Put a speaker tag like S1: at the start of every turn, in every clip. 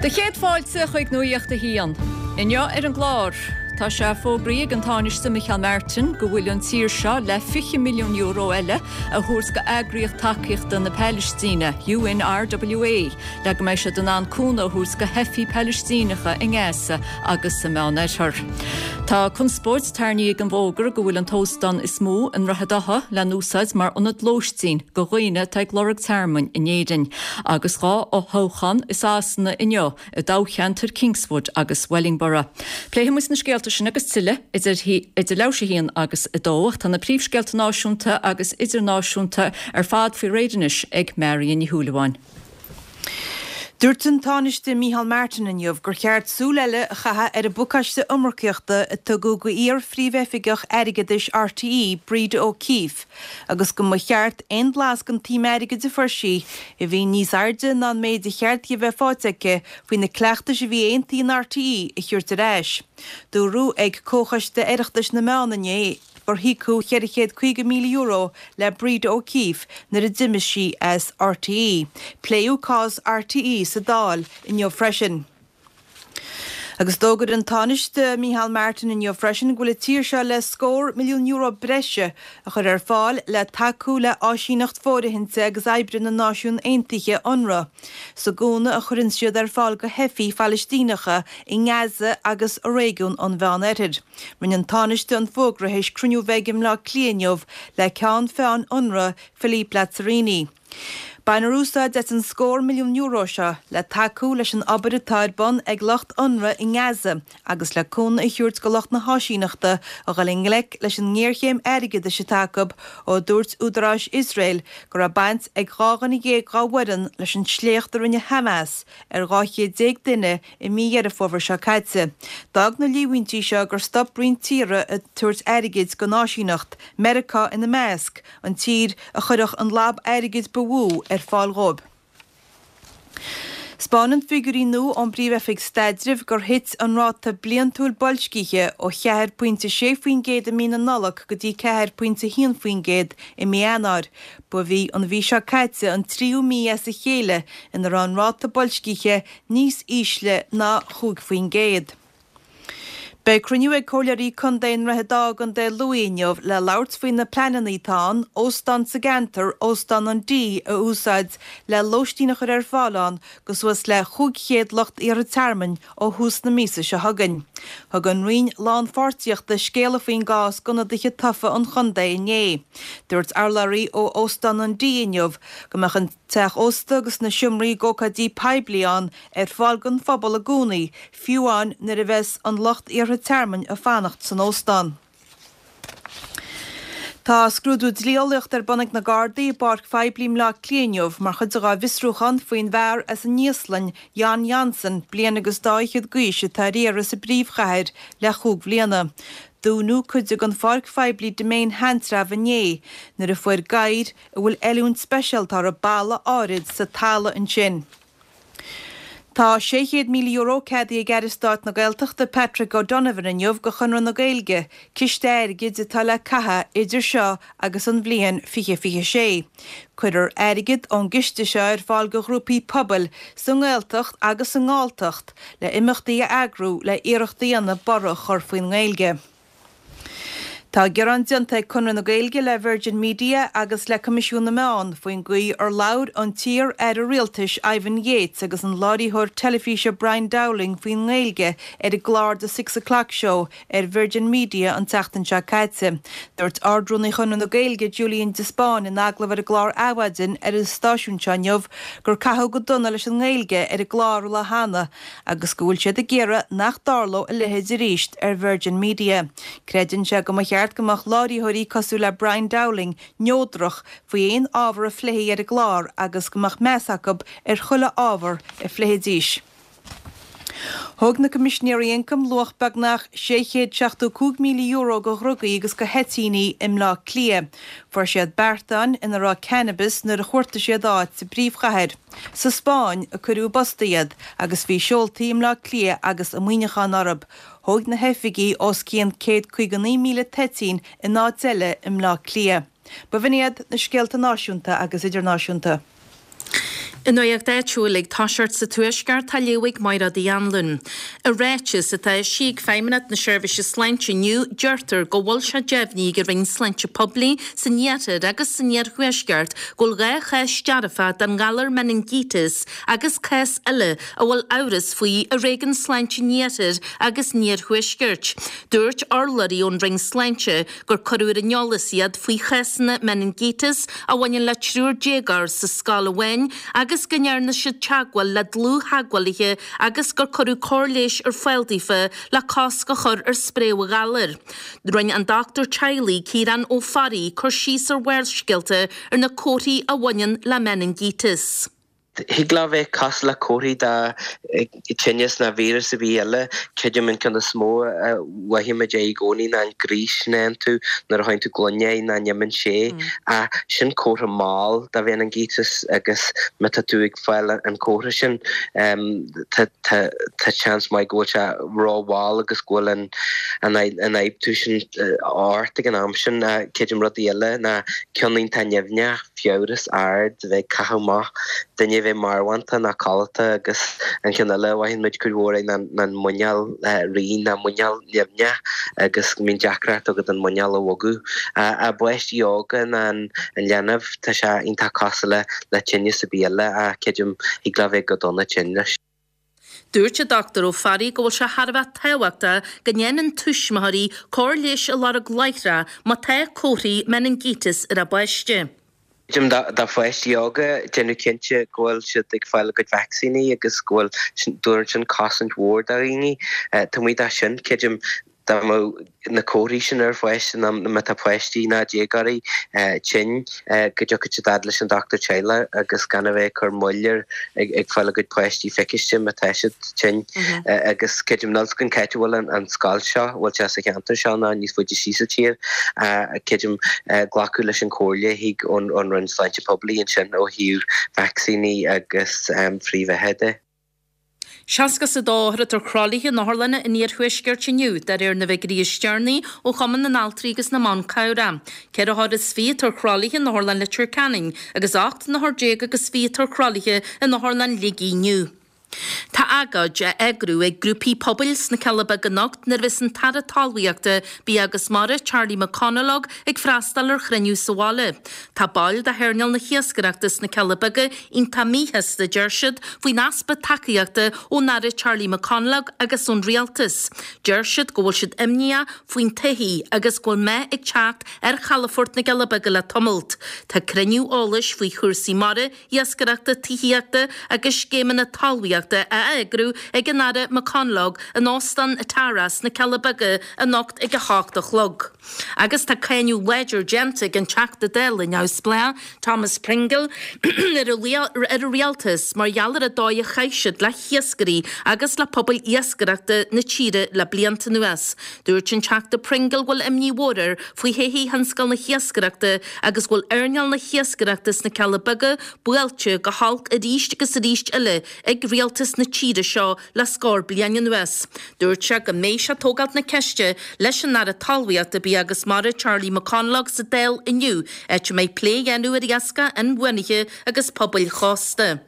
S1: Do chéad fáilte chuig Nuacht a hAon. Inniu ar an gclár, tá sé fógraithe ag an Tánaiste Micheál Martin go bhfuil an tír seo le €20 milliún eile a thabhairt go eagraíocht tacaíochta na Palaistíne, UNRWA, le go mbeidh siad in ann cúnamh a thabhairt go theifigh Palaistíneacha i nGaza agus sa Meánoirthear. Tá conspóid tarraingthe ag an bhfógra go bhfuil an t-óstán is mó i nDroichead Átha le n-úsáid mar ionad lóistín go dhaoine atá ag lorg tearmainn in Éirinn. Agus 2 fhothoghchán i Sasana inniu i dtoghcheantair Kingswood agus Wellingborough. Pléifidh muid na scéalta sin agus tuilleadh idir idir leathuair théis 1 agus 2 ach tá na príomhscéalta náisiúnta agus idirnáisiúnta ar fad faoi réir anois ag Marion Ní Shúilleabháin.
S2: Dúirt an Tánaiste Micheál Martin inniu gur cheart súil eile a chaitheamh ar an bpacáiste iomarcaíochta a tugadh go iar-phríomhoifigeach airgeadais RTÉ, Breda O'Keeffe, agus go mba cheart aon bhlas den tsuim airgid a fuair sí, a bhí níos airde ná an méid a cheart di a bheith faighte aici faoi na cleachtais a bhí aontaithe in RTÉ, a thabhairt ar ais. Dúradh ag Comhchoiste Oireachtais na Meán inné gur híocadh €450,000 le Breda O'Keeffe nuair a d'imigh sí as RTÉ. Pléadh cás RTÉ sa Dáil inniu freisin. Agus d'fhógair an Tánaiste Micheál Martin inniu freisin go bhfuil an tír seo le scór milliún euro breise a chur ar fáil le tacú le áisíneacht fóirithinte agus oibre na Náisiún Aontaithe, Unrwa, sa gcúnamh a chuireann siad ar fáil go theifigh Phalaistíneacha i nGaza agus i réigiún an Mheán-Oirthir. Rinne an Tánaiste an fógra théis cruinniú a bheith aige i mBleá Cliath inniu le ceann feadhain Unrwa, Philippe Lazzarini. Bainfear úsáid as an scór milliún euro seo le tacú leis an obair atá ar bun ag lucht Unrwa i nGaza agus le cúnamh a thabhairt go lucht na háisíneachta a dhul i ngleic leis an ngéarchéim airgeadais atá acu ó dúirt údaráis Iosrael go raibh baint ag 12 dhuine dá bhfoireann leis an sléacht a rinne Hamas ar 12 chéad duine i mí Dheireadh Fómhair seo caite. D'fhág na líomhaintí seo gur stop roinnt tíortha ag tabhairt airgid don áisíneacht, Meiriceá ina measc, an tír a chuirfeadh an lab airgid ba mhó ar fáil dhóibh. 'Spáineann figiúirí nua ón bPríomh-Oifig Staidrimh gur thit an ráta bliantúil boilscithe ó 4.6% i mí na Nollag go dtí 4.1% i mí Eanáir. Ba í an mhí seo caite an tríú mí as a chéile ina raibh an ráta boilscithe níos ísle ná 5%. Beidh cruinniú ag Comhairleoirí Contae i nDroichead Átha i gContae Lú inniu le labhairt faoi na pleananna atá ann óstán sa gceantar, Óstán an D, a úsáid le lóistín a chur ar fáil ann go suas le 500 lucht iarrtha tearmainn ó thús na míosa seo chugainn. Thug an Roinn Lánpháirtíochta scéala faoin gcás d'ionadaithe tofa an chontae inné. Dúirt urlabhraí ó Óstán an D inniu go mbeadh an teach ósta agus na seomraí d'ócáidí poiblí ann ar fáil don phobal i gcónaí, fiú amháin nuair a bheas an lucht iarrtha tearmainn ag fanacht san óstán. Tá scrúdú dlí-eolaíochta ar bun ag na Gardaí i bpáirc phoiblí i mBleá Cliath inniu mar chuid de dhá bhfiosrúchán faoin bhfear as an Íoslainn, Jon Jonsson, bliain agus dá fhichead d'aois, atá ar iarraidh sa bpríomhchathair le chúig bhliana. Dúnadh cuid den pháirc phoiblí Demesne Sheantrabh inné nuair a fuair gadhair a bhfuil oiliúint speisialta orthu balla áirid sa talamh ansin. Tá €600,000 ceadaithe ag Aire Stáit na Gaeltachta Patrick O'Donovan inniu go Chonradh na Gaeilge, ciste airgid atá le caitheamh idir seo agus an bhliain 2026. Cuirfear airgead ón gciste seo ar fáil go ghrúpaí pobail sa nGaeltacht agus sa nGalltacht le imeachtaí a eagrú le iarracht a dhéanamh borradh a chur faoin nGaeilge. Tá gearán déanta ag Conradh na Gaeilge le Virgin Media agus le Coimisiún na Meán faoin gcaoi ar labhair an t-iar-aire rialtais Ivan Yates agus an láithreoir teilifíse Brian Dowling faoin nGaeilge ar an gclár The Six O'Clock Show ar Virgin Media an tseachtain seo caite. Dúirt Ard-Rúnaí Chonradh na Gaeilge Julian de Spáinn in agallamh ar an gclár Adhmhaidin ar an stáisiún seo inniu gur caitheadh go dona leis an nGaeilge ar an gclár an lá cheana agus go bhfuil siad ag iarraidh nach dtarlódh a leithéid arís ar Virgin Media. Creideann sé go mba cheart go mbeadh láithreoirí cosúil le Brian Dowling neodrach faoi aon ábhar a phléifí ar an gclár agus go mbeadh meas acu ar chuile ábhar a phléifidís. Thóg na Coimisinéirí Ioncaim luach beagnach €675,000 de dhrugaí agus de thoitíní i mBleá Cliath. Fuair siad beartáin ina raibh cannabis nuair a chuartaigh siad áit sa bpríomhchathair. Sa Spáinn a cuireadh i bpost iad agus bhí seoltaí i mBleá Cliath agus i Muineachán orthu. Thóg na hoifigigh os cionn 159,000 toitín in áit eile i mBleá Cliath. B'in iad na scéalta náisiúnta agus idirnáisiúnta.
S3: I nuacht áitiúil ag toiseacht sa Tuaisceart tá á léamh ag Mairéad Uí Anluain. I ráiteas atá eisithe ag Feidhmeannacht na Seirbhíse Sláinte inniu, deirtear go bhfuil sé deimhnithe ag an Roinn Sláinte Poiblí san Iarthar agus san Iarthuaisceart go bhfuil 2 chás dearfa den ghalar meiningíteas agus cás eile a bhfuil amhras faoi i Réigiún Sláinte an Iarthair agus an Iarthuaiscirt. Dúirt urlabhraí ón Roinn Sláinte gur cuireadh ar an eolas iad faoi chásanna meiningíteas a bhaineann le triúr déagóir sa scoil amháin agus go ndearna siad teagmháil le dlúth-theagmhálaithe agus gur cuireadh cóir leighis ar fáil daofa le cosc a chur ar spréadh an ghalair. Rinne an dochtúir teaghlaigh Ciarán Ó Fearraigh cur síos ar Bharrscéalta ar na comharthaí a bhaineann le meiningíteas.
S4: Thig leo bheith cosúil le comharthaí de tinneas nó víreas ar bith eile. Creidim an ceann is mó a mhothaímid é i gcónaí ná an gríos sin a fhaigheann tú nuair a sháigheann tú gloine é nach n-imíonn sé. Ach sin comhartha mall de mheiningíteas agus má tá tú ag fáil an comhartha sin tá tá seans maith go bhfuil sé ró-mhall agus go bhfuil an an ionfhabhtú sin ort ag an am sin. Creidim rudaí eile ná ceann iontach nimhneach. fiabhras ard, bheith ag caitheamh amach, duine a bheith marbhánta ná codlata agus an ceann eile a mhothaíonn muid cuid mhór é ná an muineál righin ná muineál nimhneach agus go mbíonn deacracht agat an muineál a bhogadh. I bpáistí óga ná an leanbh tá sé iontach cosúil le tinneas ar bith eile ach creidim thig leo bheith go dona tinn leis.
S3: Dúirt an Dr Ó Fearraigh go bhfuil sé thar a bheith tábhachtach go ndéanann tuismitheoirí cóir leighis a lorg láithreach má tá comharthaí meiningíteas ar a bpáiste.
S4: Creidim do pháistí óga déanamh cinnte go bhfuil siad ag fáil a gcuid vacsaíní agus go bhfuil, tabharann sin cosaint mhór do dhaoine. Taobh amuigh de sin, creidim dá mbeadh na comharthaí sin ar pháiste nó má tá páistí ná déagóirí tinn go dtiocfadh siad fhad leis an dochtúir teaghlaigh agus gan a bheith ag cur moill ar ag fáil a gcuid páistí feiciste má tá siad tinn. Agus creidim níl 's againn cá háit a bhfuil an scoil seo, bhfuil sé sa cheantar seo nó níos faide síos sa tír, creidim glacadh leis an chomhairle a thig ón Roinn Sláinte Poiblí ansin ó thaobh vacsaíní agus frithbheatha de.
S3: 62 othar atá ar thralaithe in otharlanna an iarthuaiscirt inniu, de réir na bhfigiúirí is deireanaí ó Chumann na nAltraí agus na mBan Cabhrach. Ceithre othar is fiche atá ar thralaithe in Otharlann Leitir Ceanainn agus 18 n-othar agus fiche atá ar thralaithe in Otharlann Shligigh inniu. Tá agóid á eagrú ag grúpaí pobail sna Cealla Beaga anocht nuair a bheas an tAire Talmhaíochta, Bia agus Mara, Charlie McConalogue, ag freastal ar chruinniú sa bhaile. Tá baill de hearnáil na hiascaireachta sna Cealla Beaga iontach míshásta, deir siad, faoin easpa tacaíochta ón Aire Charlie McConalogue agus ón Rialtas. Deir siad go bhfuil siad imníoch faoin todhchaí agus go bhfuil meath ag teacht ar chalafort na gCealla Beaga le tamalt. Tá cruinniú eolais faoi chúrsaí mara, iascaireachta, tithíochta agus scéimeanna talmhaíochta á eagrú ag an Aire McConalogue in Óstán Tara sna Cealla Beaga anocht ag 8 a chlog. Agus tá cáineadh láidir déanta ag an Teachta Dála neamhspleách, Thomas Pringle, ar an Rialtas mar gheall ar an dóigh a chaith siad le hiascairí agus le pobail iascaireachta na tíre le blianta anuas. Dúirt an Teachta Pringle go bhfuil imní mhór air faoi thodhchaí thionscal na hiascaireachta agus go bhfuil earnáil na hiascaireachta sna Cealla Beaga buailte go holc arís agus arís eile ag rialtas na tíre seo le scór bliain anuas. Dúirt sé go mbeidh sé ag tógáilt na ceiste leis an Aire Talmhaíochta, Bia agus Mara Charlie McConalogue sa Dáil inniu, áit a mbeidh plé á dhéanamh ar iascach inbhuanaithe agus pobail chósta.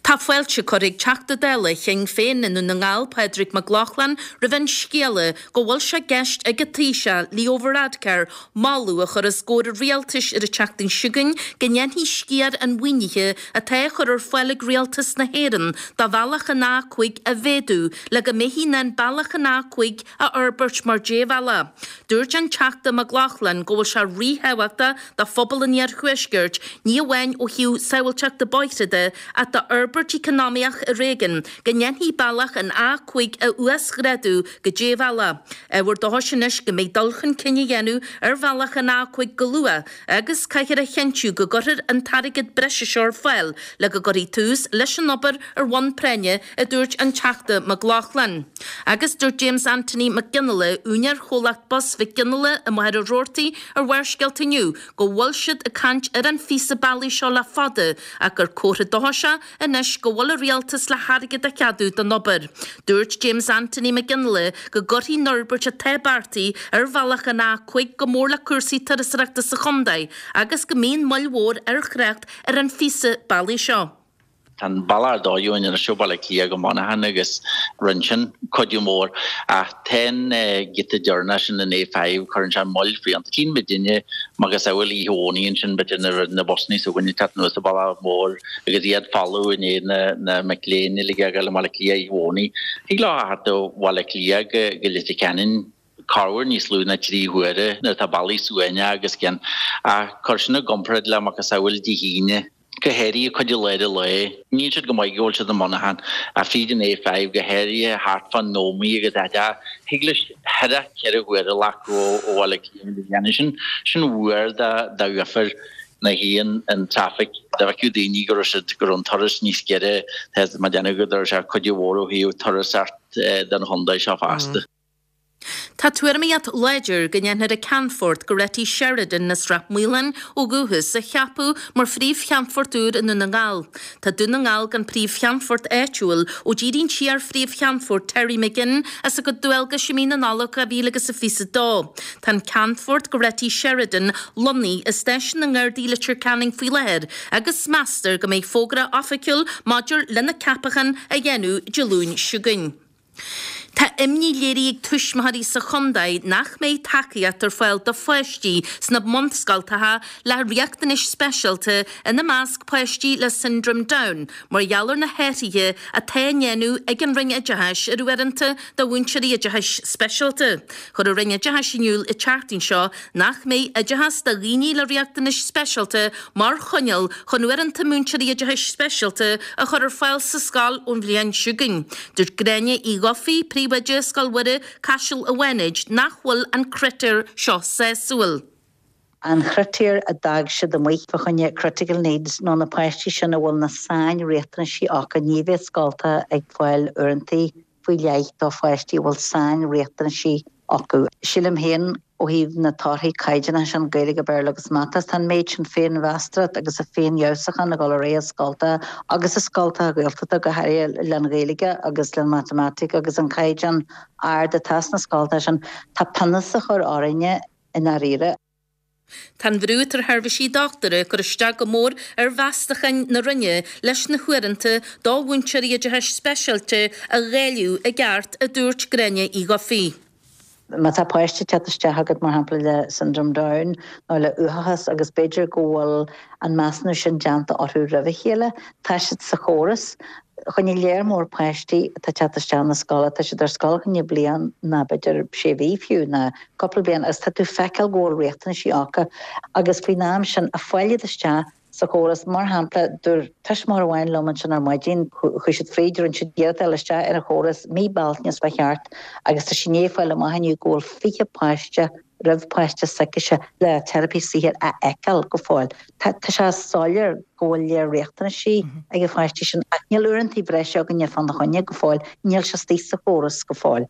S3: Tá fáilte curtha ag Teachta Dála Shinn Féin i nDún na nGall, Pádraig Mac Lochlainn, roimh an scéala go bhfuil sé i gceist ag an Taoiseach, Leo Varadkar, moladh a chur os comhair an rialtais ar an tseachtain seo chugainn go ndéanfaí sciar an mhaoinithe atá á chur ar fáil ag Rialtas na hÉireann do bhealach an A5 a mhéadú le go mbeifí in ann bealach an A5 a fhorbairt mar débhealach. Dúirt an Teachta Mac Lochlainn go bhfuil sé ríthábhachtach do phobal an iarthuaiscirt, ní amháin ó thaobh sábháilteachta bóithre de ach d'fhorbairt eacnamaíoch i réigiún, go ndéanfaí bealach an A5 a uasghrádú go débhealach. Ábhar dóchais anois go mbeidh dul chun cinn á dhéanamh ar bhealach an A5 go luath agus caithfear a chinntiú go gcuirfear an t-airgead breise seo ar fáil le go gcuirfí tús leis an obair ar bhonn práinne, a dúirt an Teachta Mac Lochlainn. Agus dúirt James Anthony Mac Fhionnghaile, úinéir chomhlacht bus Mhic Fhionnghaile i Machaire Rabhartaigh ar Bharrscéalta inniu go bhfuil siad ag caint ar an phíosa bealaigh seo le fada ach gur comhartha dóchais é anois go bhfuil an rialtas le hairgead a cheadú don obair. Dúirt James Anthony Mac Fhionnghaile go gcuirfidh an fhorbairt atá beartaithe ar bhealach an A5 go mór le cúrsaí turasóireachta sa chontae agus go mbíonn moill mhór ar thrácht ar an phíosa bealaigh seo.
S5: Tá an bealach ar dóigh uainn anois ó Bhaile Átha Cliath go Muineachán agus rinne sin cuidiú mór. Ach tá an giota deireanach sin, an A5, cuireann sé moill fiánta. Tchíonn muidinne macasamhail oíche Dhomhnaigh ansin, b'fhéidir nuair a bhí na busannaí s'againne ag teacht anuas an bealach mór agus iad folamh i ndiaidh na mic léinn uilig a ghabháil i mBaile Átha Cliath oíche Dhomhnaigh. Thig leo a theacht ó Bhaile Átha Cliath go Leitir Ceanainn corruair níos lú ná 3 huaire nuair atá bealaí suaimhneach agus cian. Ach cuir sin i gcomparáid le macasamhail Dé hAoine. Go háirithe cuid i lár an lae. Níl siad go maith go bhfuil siad i Muineachán ach fríd an A5 go háirithe thart fán Ómaigh agus áit thig leis thart 4 huaire a ghlacadh ó Bhaile Átha Cliath go dhéanamh sin. Sin uair d'uafar na haon an traffic. Dá bhfeicfeadh daoine go raibh siad go raibh an turas níos giorra tá mé ag déanamh go dtabharfadh sé cuidiú mhór ó thaobh turasóireacht don chontae seo fosta.
S3: Tá tuairimíocht láidir go ndéanfar an Ceannfort Goretti Sheridan as Ráth Maoláin ó dhúchas a cheapadh mar phríomh-cheannfort úr i nDún na nGall. Tá Dún na nGall gan príomh-cheannfort áitiúil ó d'éirigh an t-iar-phríomh-cheannfort Terry McGinn as a gcuid dualgais i mí na Nollag 2022. Tá an Ceannfort Goretti Sheridan lonnaithe i Stáisiún na nGardaí Leitir Ceanainn faoi láthair agus meastar go mbeidh fógra oifigiúil maidir lena ceapachán á dhéanamh Dé Luain seo chugainn. Tá imní léirithe ag tuismitheoirí sa chontae nach mbeidh tacaíocht ar fáil do pháistí sna bunscoltacha le riachtanais speisialta, ina measc páistí le Siondróm Down, mar gheall ar na hathruithe atá á ndéanamh ag an Roinn Oideachais ar uaireanta do mhúinteoirí oideachais speisialta. Chuir an Roinn Oideachais in iúl an tseachtain seo nach mbeidh oideachas do dhaoine le riachtanais speisialta mar choinníoll chun uaireanta múinteoirí oideachais speisialta a chur ar fáil sa scoil ón bhliain seo chugainn. Dúirt Gráinne Uí Dhufaigh, Príomhoide Scoil Mhuire, Caiseal an Bhánait, nach bhfuil an critéar seo sásúil.
S6: An chritéar a d'fhág siad amuigh fá choinne critical needs nó na páistí sin a bhfuil na sain-riachtanaisí acu, ní bheidh scoltacha ag fáil uaireanta faoi leith do pháistí a bhfuil sain-riachtanaisí acu. Sílim féin, ó thaobh na torthaí caighdeánacha sin, Gaeilge, Béarla agus Mata, tá an méid sin féinmheastóireacht agus a féinfheabhsúchán ag dul ar aghaidh i scoltacha agus i scoltacha Gaeltachta go háirithe len Ghaeilge agus len Matamaitic agus an caighdeán ard atá sna scoltacha sin, tá pionós á chur orainne i ndáiríre.
S3: Tá an bhrú atá ar sheirbhísí dochtúra ag cur isteach go mór ar mheastacháin na Roinne leis na huaireanta do mhúinteoirí oideachais speisialta a dháileadh i gceart, a dúirt Gráinne Uí Dhufaigh.
S6: Má tá páiste ag teacht isteach agat, mar shampla, le Syndrome Down nó le uathachas agus b'fhéidir go bhfuil an measúnú sin déanta orthu roimh a chéile, tá siad sa chóras. Choinne léar mór páistí atá ag teacht isteach na scoile, tá siad ar scoil choinne bliain ná b'fhéidir sé mhí fiú ná cúpla bliain agus tá tú feiceáil go bhfuil riachtanaisí acu agus faoin am sin a fáil iad isteach sa chóras. Mar shampla, dúirt tuismitheoir amháin liom ansin ar maidin, chuaigh siad fríd, rinne siad iarracht a fháil isteach ar an chóras mí Bealtaine is fá cheart agus tá sí i ndiaidh fáil amach inniu go bhfuil 20 páiste roimh páiste s'aicise le teiripí saothair a fheiceáil go fóill. Tá sé soiléir go bhfuil léar riachtanaisí ag na páistí sin ach níl uaireanta breise againne fána choinne go fóill, níl sé istigh sa chóras go fóill.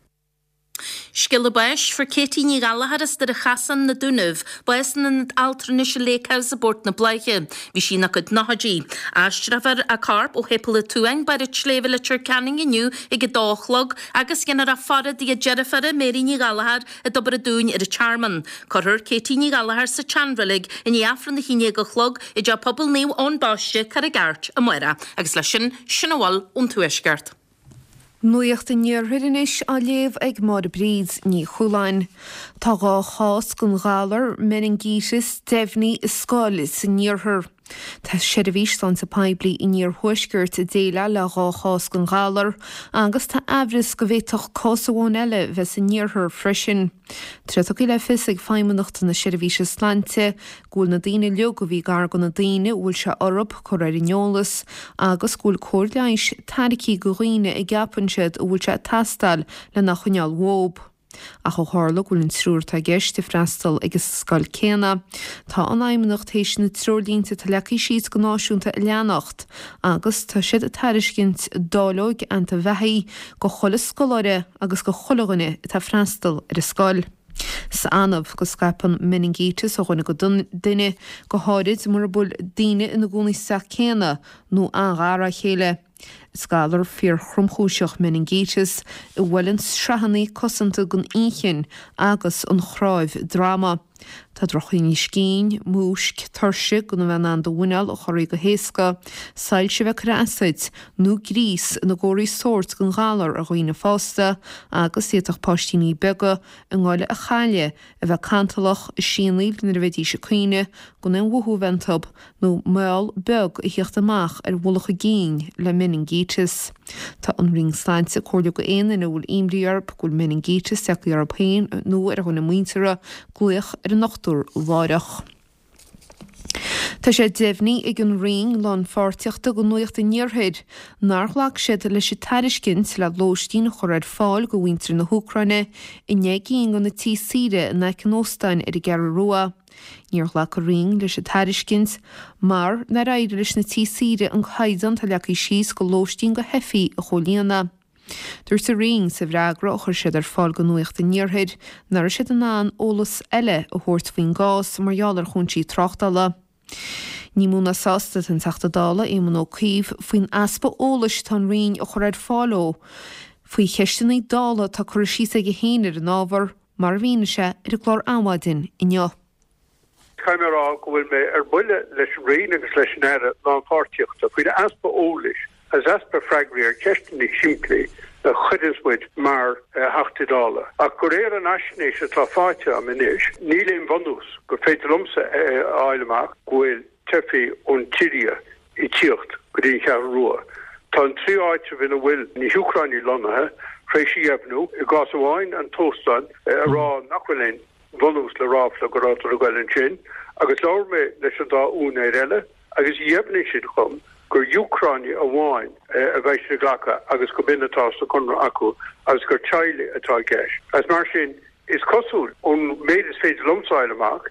S3: Scéala báis, Fuair Katie Ní Ghallachair as Doire Chasáin, Na Dúnaibh, bás in Ionad Altranais an Lake House i bPort na Bláiche. Bhí sí ina cuid nóchaidí. Aistreofar a corp ó Shéipéal an tSuain, Barr an tSléibhe, Leitir Ceanainn inniu ag 2 a chlog agus dhéanfar a faire dtigh a deirféara, Mary Ní Ghallachair, i dTobar an Dúin ar an Tearmann. Cuirfear Katie Ní Ghallachair sa tseanreilig i ndiaidh Aifreann 11 a chlog i dTeach Pobail Naomh Eoin Baiste, Carraig Airt, amárach. Agus leis sin, sin a bhfuil ón Tuaisceart.
S7: Nuacht an Iarthair anois á léamh ag Máire Bríd Ní Chualáin. Tá 2 chás den ghalar meiningíteas deimhnithe i scoil san iarthar. Tá Seirbhís Sláinte Poiblí an Iarthuaiscirt ag déileáil le 2 chás den ghalar agus tá aimhreas go bhféadfadh cás amháin eile bheith san iarthar freisin. Tá sé tugtha le fios ag Feidhmeannacht na Seirbhíse Sláinte go bhfuil na daoine uilig a bhí gar do na daoine a bhfuil sé orthu curtha ar an eolas agus go bhfuil cóir leighis tairgthe do dhaoine a gceapann siad a bhfuil sé ag teastáil lena choinneáil uathu. Ach ó tharla go bhfuil an triúr atá i gceist ag freastal ag an scoil céanna, tá an Fheidhmeannacht théis na treoirlínte atá leagtha síos go náisiúnta a leanacht agus tá siad ag tairiscint dáileoig antaibheathaigh go chuile scoláire agus go chuile dhuine atá ag freastal ar an scoil. Is annamh go scaipeann meiningíteas ó dhuine go duine, go háirid mura bhfuil daoine ina gcónaí sa teach céanna nó an-ghar dá chéile. Is galar fíorthromchúiseach meiningíteas a bhuaileann sraitheanna cosanta den inchinn agus an chnáimh droma. Tá drochthinneas cinn, múisc, tuirse gan a bheith in ann do mhuineál a chorraí go héasca, soilse a bheith ag cur as duit, nó gríos ina gcomharthaí sóirt den ghalar ar dhaoine fásta agus d'fhéadfadh páistíní beaga a ngoile a chailleadh, a bheith cantalach, ag sianaíl nuair a bheidís ag caoineadh, gan aon mhothú a bheith iontu, nó meall beag a thíocht amach ar mhullach a gcinn le meiningíteas. Tá an Roinn Sláinte ag comhairliú go aon duine a bhfuil imní orthu go bhfuil meiningíteas tagtha orthu féin nó ar dhuine muinteartha, glaoch ar an ndochtúir láithreach. Tá sé deimhnithe ag an Roinn Lánpháirtíochta do Nuacht an Iarthair nár ghlac siad leis an tairiscint le lóistín a chur ar fáil do mhuintir na hÚcráine i ndeich gcinn de na tithe saoire in aice an óstáin ar an gCeathrú Rua. Níor ghlac an Roinn leis an tairiscint mar nár éirigh leis na tithe saoire an caighdeán atá leagtha síos do lóistín do theifigh a chomhlíonadh. Dúirt an Roinn sa bhfreagra a chuir siad ar fáil do Nuacht an Iarthair nach raibh siad in ann eolas eile a thabhairt faoin gcás mar gheall ar chúinsí tráchtála. Ní mó ná sásta atá an Teachta Dála Éamon Ó Cuív faoin easpa eolais atá an Roinn a chur ar fáil dó faoi cheisteanna Dála atá curtha síos aige féin ar an ábhar, mar a mhínigh sé ar an gclár Adhmhaidin inniu.
S8: Caithfidh mé a rá go bhfuil mé ar buile leis an Roinn agus leis an Aire Lánpháirtíochta faoin easpa eolais agus easpa freagraí ar cheisteanna simplí a chuireanns muid mar Theachtaí Dála. Ach de réir an fhaisnéis atá faighte agam anois, níl aon bhunús gur féidir liomsa a fháil amach go bhfuil teifigh ón tSiria ag tíocht go dtí an Cheathrú Rua. Tá an trí áitreabh ina bhfuil na hÚcránaigh lonnaithe tar éis a dheimhniú, i gcás amháin an t-óstán, a rá nach bhfuil aon bhunús le ráfla go rabhadar ag goil ansin agus labhair mé leis an dá úinéir eile agus dheimhnigh siad dhom gur Úcránaigh amháin a bheidh siad ag glacadh agus go b'in atá sa chonradh acu agus gur teaghlaigh atá i gceist. Agus mar sin, is cosúil, ón méid is féidir liomsa a fháil amach,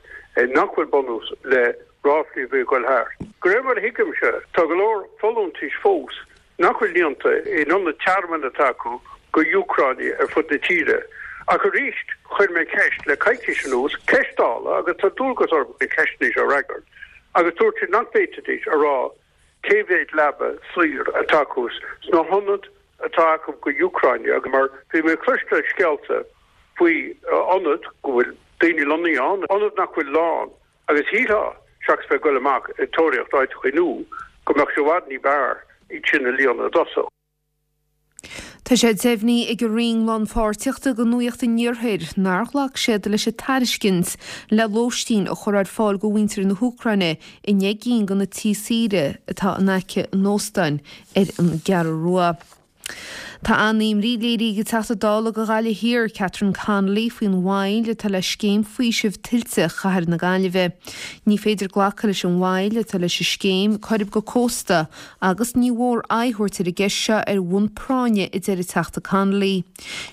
S8: nach bhfuil bunús le ráflaí a bhí ag goil thart. De réir mar a thuigimse, tá go leor folúntais fós nach bhfuil líonta in ionaid tearmainn atá acu go Úcránaigh ar fud na tíre. Ach arís, chuir mé ceist le coicís anuas, ceist Dála, agus tá dualgas orm na ceisteanna seo a fhreagairt, agus dúirt siad nach bhféadfaidís a rá cé mhéad leaba saor atá acu sna hionaid atá acu go Úcránaigh, agus mar bhí mé ag cloisteáil scéalta faoi ionaid go bhfuil daoine lonnaithe ann, ionaid nach bhfuil lán. Agus shílfeá, seachas bheith ag goil amach ag tóraíocht áiteachaí nua, go mbeadh sé i bhfad ní b'fhearr iad sin a líonadh i dtosach.
S7: Tá sé deimhnithe ag an Roinn Lánpháirtíochta do Nuacht an Iarthair nár ghlac siad leis an tairiscint le lóistín a chur ar fáil do mhuintir na hÚcráine i ndeich gcinn de na tithe saoire atá in aice an óstáin ar an gCeathrú Rua. Tá an-imní léirithe ag an Teachta Dála do Ghaillimh Thiar, Catherine Connolly, faoin mhoill atá le scéim faoisimh tuilte Chathair na Gaillimhe. Ní féidir glacadh leis an mhoill atá leis an scéim Coirib go Cósta agus ní mhór aghaidh a thabhairt ar an gceist seo ar bhonn práinne, a deir an Teachta Connolly.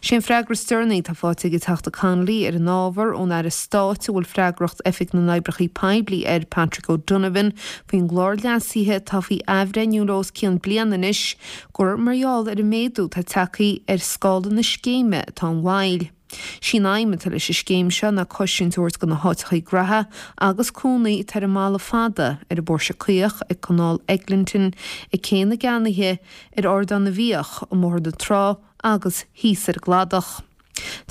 S7: Sé an freagra is deireanaí atá faighte ag an Teachta Connolly ar an ábhar ón Aire Stáit a bhfuil freagracht Oifig na nOibreacha Poiblí air, Patrick O'Donovan, faoin gclár leasaithe atá faoi athbhreithniú le os cionn bliana anois, gur mar gheall ar an méadú atá tagtha ar scála na scéime atá an mhoill. Sí an aidhm atá leis an scéim seo ná cosaint a thabhairt do na háiteachaí graithe agus cónaí atá ar an mBalla Fada, ar an bPóirse Caoch, ag Canáil Eglinton, ag Cé na gCeannaithe, ar Ardán na bhFiach, i mBóthar na Trá agus thíos ar an gCladach.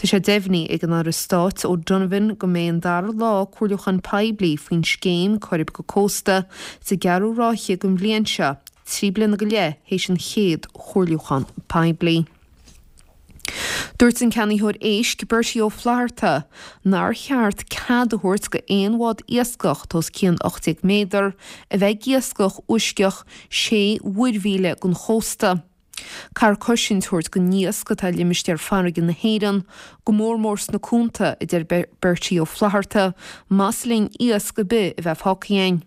S7: Tá sé deimhnithe ag an Aire Stáit O'Donovan go mbeidh an dara lá comhairliúchán poiblí faoin scéim Coirib go Cósta sa gceathrú ráithe den bhliain seo, 3 bliana go leith théis an chéad chomhairliúchán poiblí. Dúirt an ceannaitheoir éisc Bertie Ó Flatharta nár cheart cead a thabhairt go aon bhád iascach atá os cionn 18 méadar a bheith ag iascach uisceach 6 mhuirmhíle den chósta. Caithfear cosaint a thabhairt don iasc atá i limistéar farraige na hÉireann, go mór mór sna cuanta, a deir Bertie Ó Flatharta, más linn iasc ar bith a bheith fágtha againn.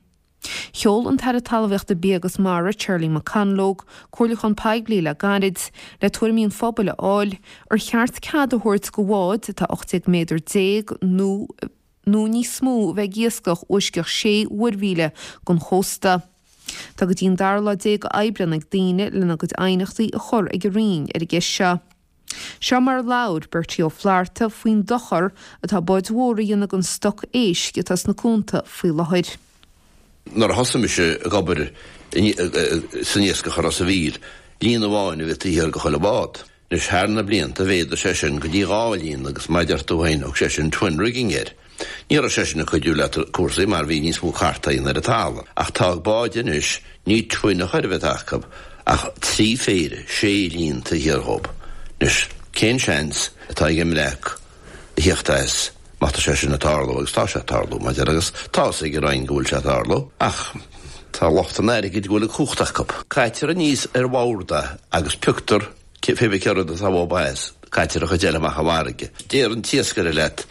S7: Sheol an tAire Talmhaíochta Bia agus Mara, Charlie McConalogue, comhairliúchán poiblí le gairid le tuairimí an phobail a fháil ar cheart cead a thabhairt do bháid atá 18 méadar nó nó níos mó a bheith ag iascach uisceach 6 mhuirmhíle den chósta. Tá go dtí an dara lá déag Aibreán ag daoine lena gcuid aighneachtaí a chur ag an Roinn ar an gceist seo. Seo mar a labhair Bertie Ó Flatharta faoin dochar atá báid mhóra a dhéanamh don stoc éisc atá sna cuanta faoi láthair.
S9: Nuair a thosaigh mise ag obair san iascach i Ros a' Mhíl. Líon amháin a bhí taobh thiar de chuile bhád. Anois thar na blianta mhéadaigh sé sin go dtí 2 líon agus mar a deir tú féin thug sé sin twin rigging air. Ní raibh sé sin ag cuidiú le cúrsaí mar bhí níos mó cartaí ar an talamh. Ach tá ag báid anois, ní twin a chor a bheith acu ach 3 phéire, 6 líon taobh thiar dhób. Anois cén seans atá ag an mbreac a thíocht as má tá sé sin ag tarlú agus tá sé ag tarlú mar a deir agus tá fhios ag an Roinn go bhfuil sé ag tarlú ach tá lucht an airgid go bhfuil an cumhacht acu. Caitear aníos ar bhord é agus pioctar pé bith cé rud atá uathub as, caitear an chuid eile amach i bhfarraige. Deir an t-iascaire leat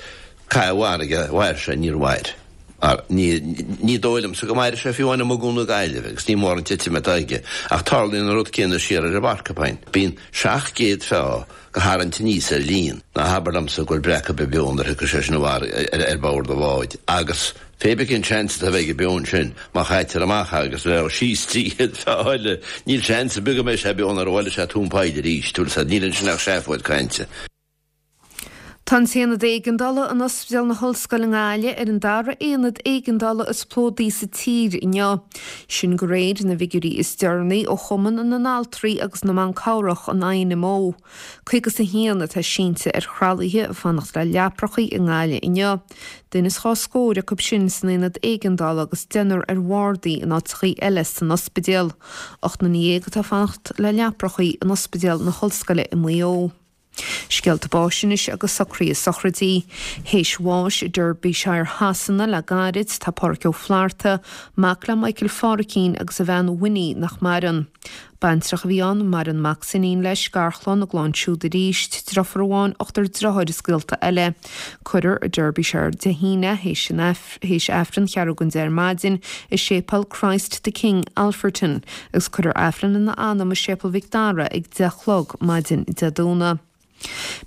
S9: caith i bhfarraige, mhair sé, níor mhair. Mar ní ní dóigh liomsa go mairfidh sé fiú amháin amuigh i gCuan na Gaillimhe agus ní mór an titim atá aige ach tarlaíonn an rud céanna siar ar an bPorcupine. Bíonn 700 feá go tharraingt aníos ar líon. Ná habair liomsa go bhfuil breac ar bith beo nuair a thiocfaidh sé sin ar bord an bháid agus pé bith cén seans atá a bheith aige beo ansin má chaitear amach é agus bheadh síos 300 feá eile níl seans ar bith go mbeidh sé beo nuair a bhuailfidh sé tóin poill arís, bhfuil 'fhios a'd, níl ansin ach seafóid cainte.
S7: Tá an tAonad Éigeandála in Ospidéal na hOllscoile i nGaillimh ar an dara aonad éigeandála is plódaí sa tír inniu. Sin de réir na bhfigiúirí is deireanaí ó Chumann na nAltraí agus na mBan Cabhrach, an INMO. 51 atá sínte ar thralaithe ag fanacht le leaprachaí i nGaillimh inniu. Duine is dhá scór acu sin san aonad éigeandála agus deichniúr ar bhardaí in áiteachaí eile san ospidéal. 18 nduine atá ag fanacht le leaprachaí in Ospidéal na hOllscoile i Maigh Eo. Scéalta báis anois agus socruithe sochraidí. Théis bháis i Derbyshire Shasana le gairid, tá Páraic Ó Flatharta, mac le Michael Phárraicín agus a bhean Winnie nach maireann. Baintreach a bhí ann, maireann mac 's iníon leis, garchlann, a gclann siúd arís, driofúr amháin, ochtar driotháir is gaolta eile. Cuirfear i Derbyshire Dé hAoine, théis an. théis Aifreann cheathrú don 10 ar maidin i Séipéal Christ the King, Alfreton, agus cuirfear Aifreann ina anam i Séipéal Mhic Dara ag 10 a chlog maidin Dé Domhnaigh.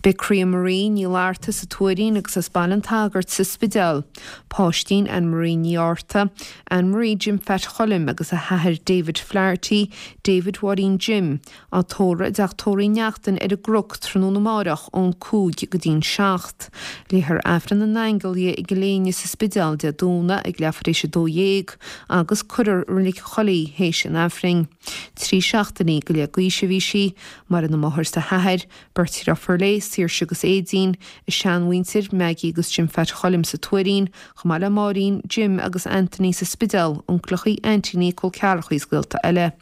S7: Beidh Croía Marie Ní Fhlatharta sa Tuairín agus as Baile an tSagairt sa Spidéal. Páistín Anne Marie Ní Fhátharta, Anne Marie Jim Phat Choilm agus a hathair David Flaherty, David Mháirín Jim, Á tórramh i dteach tórraimh Uí Neachtain ar an gCnoc tráthnóna amáireach ón 5 go dtí'n 7. Léifear Aifreann na nAingeal di i gCill Éinne sa Spidéal Dé Domhnaigh ag leathuair tar éis 12 agus cuirfear i Reilig an Choilligh í théis an Aifrinn. 3 seachtainí go leith d'aois a bhí sí. Maireann a máthair 's a hathair, beirt dhriofúr léi, Saoirse agus Aedín, a seanmhuintir, Maggie agus Jim Phat Choilm sa Tuairín, chomh maith le Máirín, Jim agus Anthony sa Spidéal, uncaileachaí, aintíní, col ceathrachaí is gaolta eile.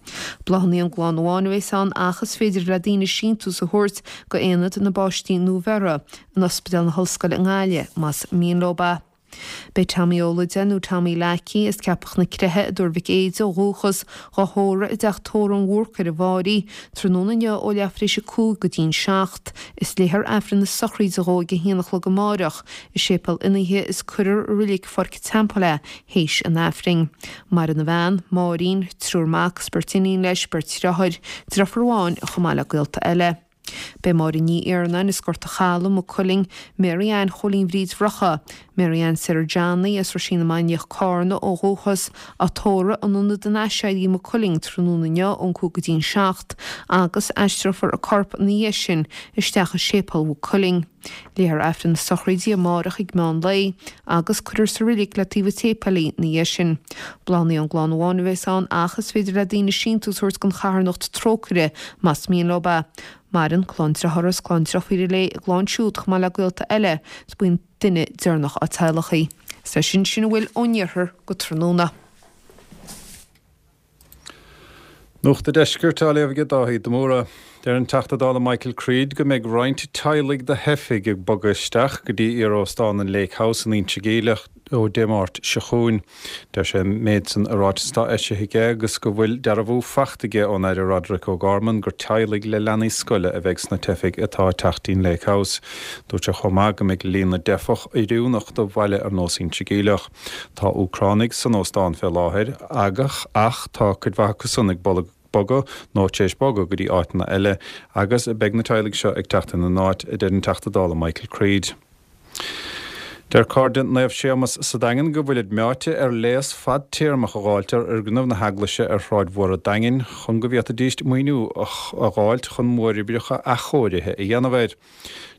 S7: Bláthanna ón gclann amháin a bheas ann ach is féidir le daoine síntiús a thabhairt go Aonad na bPáistí Nuabheirthe in Ospidéal na hOllscoile i nGaillimh más mian leo é. Beidh Tommy Ó Loideáin nó Tommy Leacaí as Ceapach na Creiche i dTuar Mhic Éide ó dhúchas, dhá thórramh i dteach tórraimh an Bhúrcaigh ar an bhFáirí, tráthnóna inniu ó leathuair tar éis a 5 go dtí'n 7. Is léifear Aifreann na sochraide dhó ag a haon a chlog amáireach i Séipéal Fhionnaithe is cuirfear i Reilig Pháirc an Teampaill é théis an Aifrinn. Maireann a bhean, Máirín, triúr mac is beirt iníon leis, beirt dhriotháir, driofúr amháin chomh maith le gaolta eile. Beidh Máire Ní Iarnáin as Gort a' Chalaidh, Maigh Cuilinn, Mary Ann Chóilín Bhríd Bhrocha, Mary Ann Sarah Johnny as Roisín na Mainiach, Cárna, ó dhúchas, á tórramh in Ionad an Aiséirí, Maigh Cuilinn, tráthnóna inniu ón 5 go dtí'n 7 agus aistreofar a corp ina dhiaidh sin isteach i Séipéal Mhaigh Cuilinn. Léifear Aifreann na sochraide amárach ag meán lae agus cuirfear sa reilig le taobh an tséipéil í ina dhiaidh sin. Bláthanna ón gclann amháin a bheas ann ach is féidir le daoine síntiús a thabhairt don charthanacht Trócaire más mian leo é. Maireann clann driothára is clann driofúire léi, a gclann siúd chomh maith le gaolta eile is buíon duine deireanach dá teaghlach í. Is leis sin sin a bhfuil ón iarthar go tráthnóna.
S10: Nuacht an Deiscirt á léamh aige Dáithí de Mórdha. Deir an Teachta Dála Michael Creed go mbeidh roinnt teaghlaigh de theifigh ag bogadh isteach go dtí iar-óstán an Lake House in Inse Geimhleach ó Dé Máirt seo chugainn. Deir sé an méid san i ráiteas atá eisithe aige agus go bhfuil dearbhú fachta aige ón Aire Roderic O'Gorman gur teaghlaigh le leanaí scoile a bheidh sna teifigh atá ag teacht dtí'n Lake House. Dúirt sé chomh maith go mbeidh líon na dteifeach oiriúnach do bhaile ar nós Inse Geimhleach. Tá Úcránaigh san óstán fé láthair agach ach tá cuid mhaith acu san ag bogadh nó tar éis bogadh go dtí áiteanna eile agus beidh na teaghlaigh seo ag teacht ina n-áit, a deir an Teachta Dála Michael Creed. Deir Cairde Naomh Séamas sa Daingean go bhfuilid meáite ar léas fadtéarmach a dh'fháilt ar fhoirgneamh na heaglaise ar Shráid Mhór an Daingin chun go bhféadfaidíst maoiniú a dh'fháilt chun móroibreacha athchóirithe a dhéanamh air.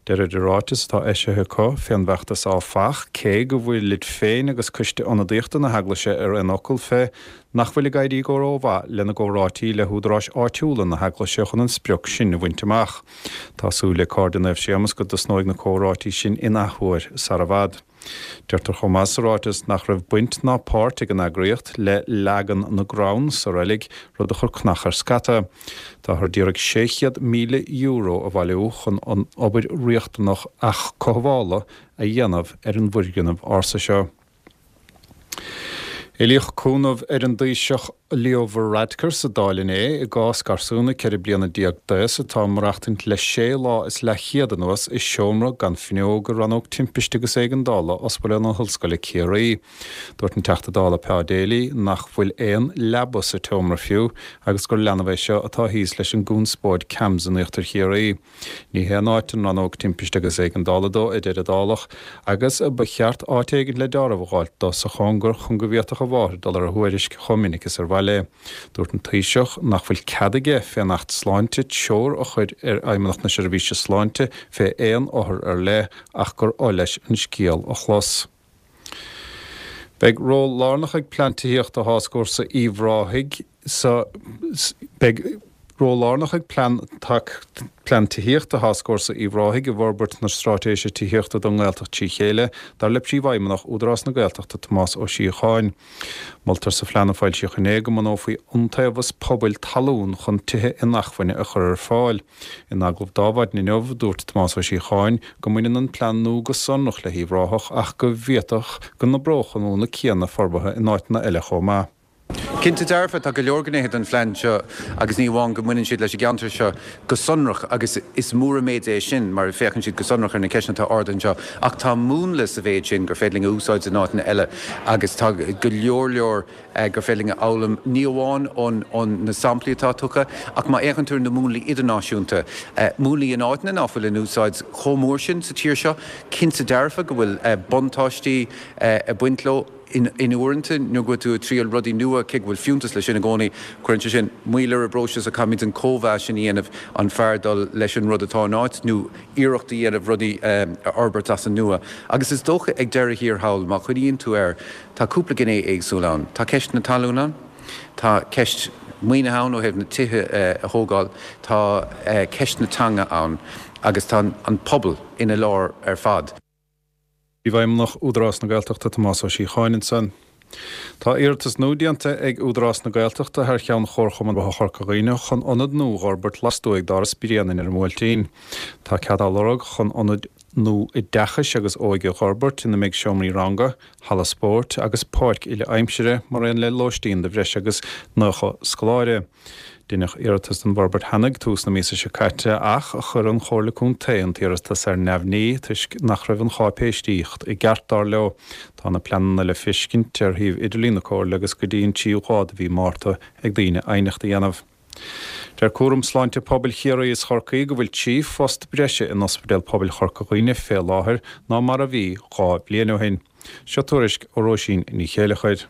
S10: Deirid i ráiteas atá eisithe acu fén bhfeachtas áfach, cé go bhfuilid féin agus Coiste Ionadaíochta na hEaglaise ar aon fhocal fé, nach bhfuil ag éirí go rómhaith lena gcomhráití le húdaráis áitiúla na hEaglaise chun an sprioc sin a bhaint amach. Tá súil ag Cairde Naomh Séamus go dtosnóidh na comhráití sin in athuair sara bhfad. Deirtear chomh maith sa ráiteas nach raibh baint ná páirt ag an eagraíocht le leagan na gcrann sa reilig, rud a chuir cnach ar scata. Táthar d'iarraidh €600,000 a bhailiú chun an obair riachtanach athchothabhála a dhéanamh ar an bhfoirgneamh ársa seo. Éilíodh cúnamh ar an dTaoiseach Leo Varadkar sa Dáil inné i gcás garsúna 14 bliana d'aos atá ag maireachtaint le sé lá is leathchéad anuas i seomra gan fuinneog i Rannóg Timpiste agus Éigeandála Ospidéal na hOllscoile Ciarraí. Dúirt an Teachta Dála Pa Daly nach bhfuil aon leaba sa tseomra fiú agus gur leanbh é seo atá thíos leis an gconspóid CAMHS in Íochtar Chiarraí. Ní haon áit an Rannóg Timpiste agus Éigeandála dó, a deir an Dálach, agus ba cheart áit éigin le deáramh a dh'fháilt dó sa chóngar chun go bhféadfadh a mháthair dul ar a thuairisc chomh minic is ar mhaith léi. Dúirt an Taoiseach nach bhfuil cead aige fén Acht Sláinte treoir a chur ar Fheidhmeannacht na Seirbhíse Sláinte fé aon othar ar leith ach gur oth leis an scéal a chlos. Beidh ról lárnach ag Plean Tithíochta Tháscfhórsa Uíbh Ráthaigh sa Beidh ról lárnach ag Plean Plean Tithíochta Tháscfhórsa Uíbh Ráthaigh i bhforbairt na Straitéise Tithíochta don nGaeltacht trí chéile, dar le Príomhfheidhmeannach Údarás na Gaeltachta Tomás Ó Síocháin. Moltar sa phlean a foilsíodh inné go mbunófaí iontaobhas pobail talún chun tithe inacmhainne a chur ar fáil. In agallamh d'Adhmhaidin inniu, dúirt Tomás Ó Síocháin go mbaineann an plean nua go sonrach le hUíbh Ráthach ach go bhféadfadh go n-oibreodh an múnla céanna forbartha in áiteanna eile chomh maith.
S11: Cinnte dearfa, tá go leor gnéithe den phlean seo agus ní amháin go mbaineann siad leis an gceantar seo go sonrach agus is mór an méid é sin mar féachann siad go sonrach ar na ceisteanna atá ardaithe anseo ach tá múnla sa mhéid sin gur féidir linn a úsáid in áiteanna eile agus tá go leor leor gur féidir linn a fhoghlaim, ní amháin ó na samplaí atá tugtha, ach má fhéachann tú ar na múnlaí idirnáisiúnta, múnlaí in áiteanna ná fuil in úsáid chomh mór sin sa tír seo, cinnte dearfa go bhfuil buntáistí ag baint leo. In uaireanta, nuair go bhfuil tú ag triail rudaí nua, cé go bhfuil fiúntas leis sin i gcónaí, cuireann sé sin moill ar an bpróiseas ach caithfimid an cóimheas sin a dhéanamh, an fearr dul leis an rud atá in áit nó iarracht a dhéanamh rudaí a fhorbairt as an nua. Agus is dócha ag deireadh thiar thall, má chuimhníonn tú air, Tá cúpla gné éagsúil ann. Tá ceist na talún ann, tá ceist maoinithe ann ó thaobh na tithe a thógáil, tá ceist na teanga ann agus tá an pobal ina lár ar fad.
S10: Príomhfheidhmeannach Údarás na Gaeltachta Tomás Ó Síocháin ansan. Tá iarratas nua déanta ag Údarás na Gaeltachta thar cheann Chomharchumann Forbartha Chorca Dhuibhne chun ionad nua dh'fhorbairt lastuaidh d'Áras Bhréanainn ar an mBuailtín. Tá cead á lorg chun ionad nua oideachais agus óige a dh'fhorbairt ina mbeidh seomraí ranga, halla spóirt agus páirc uile-aimsire mar aon le lóistín do bhreis agus 90 scoláire. Deineadh iarratas don bhforbairt cheana ag tús na míosa seo caite ach chuir an Chomhairle Contae an t-iarratas ar neamhní toisc nach raibh an cháipéisíocht i gceart, dar leo. Tá na pleananna le feiscint ar shuíomh idirlín na Comhairle agus go dtí an tríú lá de mhí Márta ag daoine aighneacht a dhéanamh. Deir Cúram Sláinte Pobail Chiarraí is Chorcaí go bhfuil 3 phost breise in Ospidéal Pobail Chorca Dhuibhne fé láthair ná mar a bhí 2 bhliain ó shin. Seo tuairisc ó Róisín Ní Chéileachair.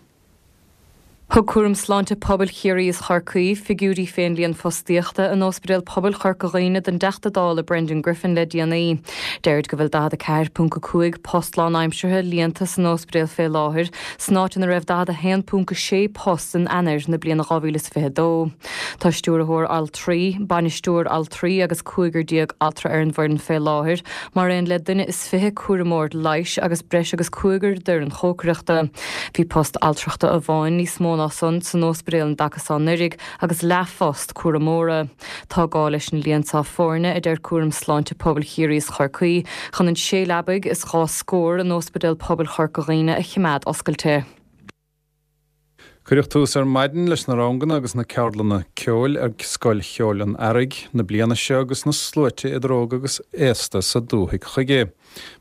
S12: Thug Cúram Sláinte Pobail Chiarraí is Chorcaí figiúirí fén líon fostaíochta in Ospidéal Pobail Chorca Dhuibhne don dTeachta Dála Brendan Griffin le déanaí. Deirid go bhfuil 44.5 post lánaimseartha líonta san ospidéal fé láthair, san áit ina raibh 41.6 post in Eanáir na bliana 2022. Tá stiúrthóir altraí, bainisteoir altraí agus cúigear altra ar an bhfoireann fé láthair, mar aon le duine is 20 cúramóir leighis agus breis agus cúigear d'fhoireann chócaireachta. Bhí post altrachta amháin níos mó ná san san óspidéal an dtaca seo anuraidh agus leathphost cúramóra. Tá gá leis an líon seo foirne, a deir Cúram Sláinte Pobail Chiarraí is Chorcaí, chun an sé leabaidh is dhá scór in Óspidéal Pobail Chorca Dhuibhne a chimeád oscailte.
S10: Cuireadh tús ar maidin leis na ranganna agus na ceardlanna ceoil ag Scoil Cheoil an Earraigh na bliana seo agus na sluaite idir óg agus aosta sa dúthaigh chuige.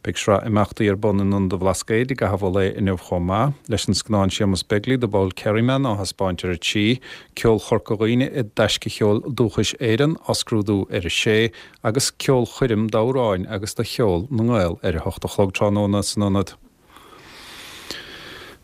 S10: Beidh sraith imeachtaí ar bun in Ionad an Bhlascaoid i gcaitheamh an lae inniu chomh maith, leis an scannán Séamus Begley, The Bold Kerryman á thaispeáint ar a 3, Ceol Chorca Dhuibhne i dTaisce Cheol Dúchais Éireann á scrúdú ar a 6 agus ceolchoirm d'amhráin agus de cheol na nGael ar a hocht a chlog tráthnóna san Ionad.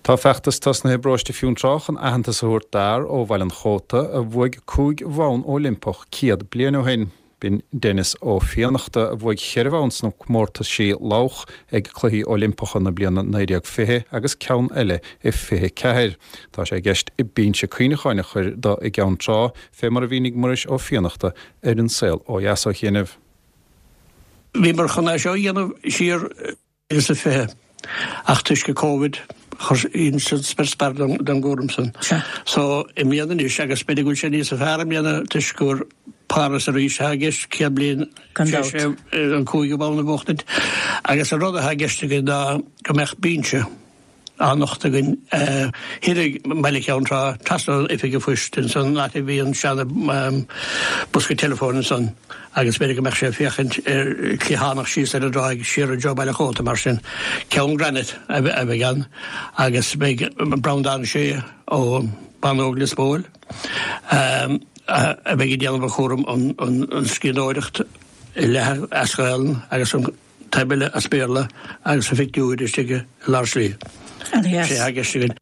S10: Tá feachtas tosnaithe i bparóiste Fionntrá chun aitheantas a thabhairt d'fhear ó Bhaile an Chóta a bhuaigh 5 bhonn Oilimpeach 100 bliain ó shin. B'in Denis Ó Fiannachta a bhuaigh cheithre bhonn sna comórtaisí lodhach ag Cluichí Oilimpeacha na bliana 1920 agus ceann eile i 24. Tá sé i gceist binse cuimhneacháin a chur do i gCeann Trá, fé mar a mhínigh Muiris Ó Fiannachta ar An Saol Ó Dheas ó chianaibh.
S13: Bhíomar chun é seo a dhéanamh siar 2020 ach toisc an Covid chuir san spior spear den gcúram san. So i mbliana anois agus b'fhéidir go bhfuil sé níosa fearr i mbliana toisc gur Páras arís atá i gceist 100 bliain tar éis an cúigiú bonn a bhuachtaint agus an rud atá i gceist againn ná go mbeadh binse á nochtadh againn thiar i mBaile Cheann Trá, trasna ón Oifig an Phoist ansan, an áit a bhí an seana bosca teileafóin ansan agus b'fhéidir go mbeadh sé ag féachaint ar cliathánach síos ar an dtráigh siar i dtreo Baile Chóta mar sin. Ceann granite a bheidh ann agus beidh Breandán Sé ó Bánóg Lios Póil a bheidh ag déanamh an chúram an scríbhneoireacht leath as Gaelainn agus an taobh eile as Béarla agus a phictiúir istigh i lár slí. Sé atá i gceist againn.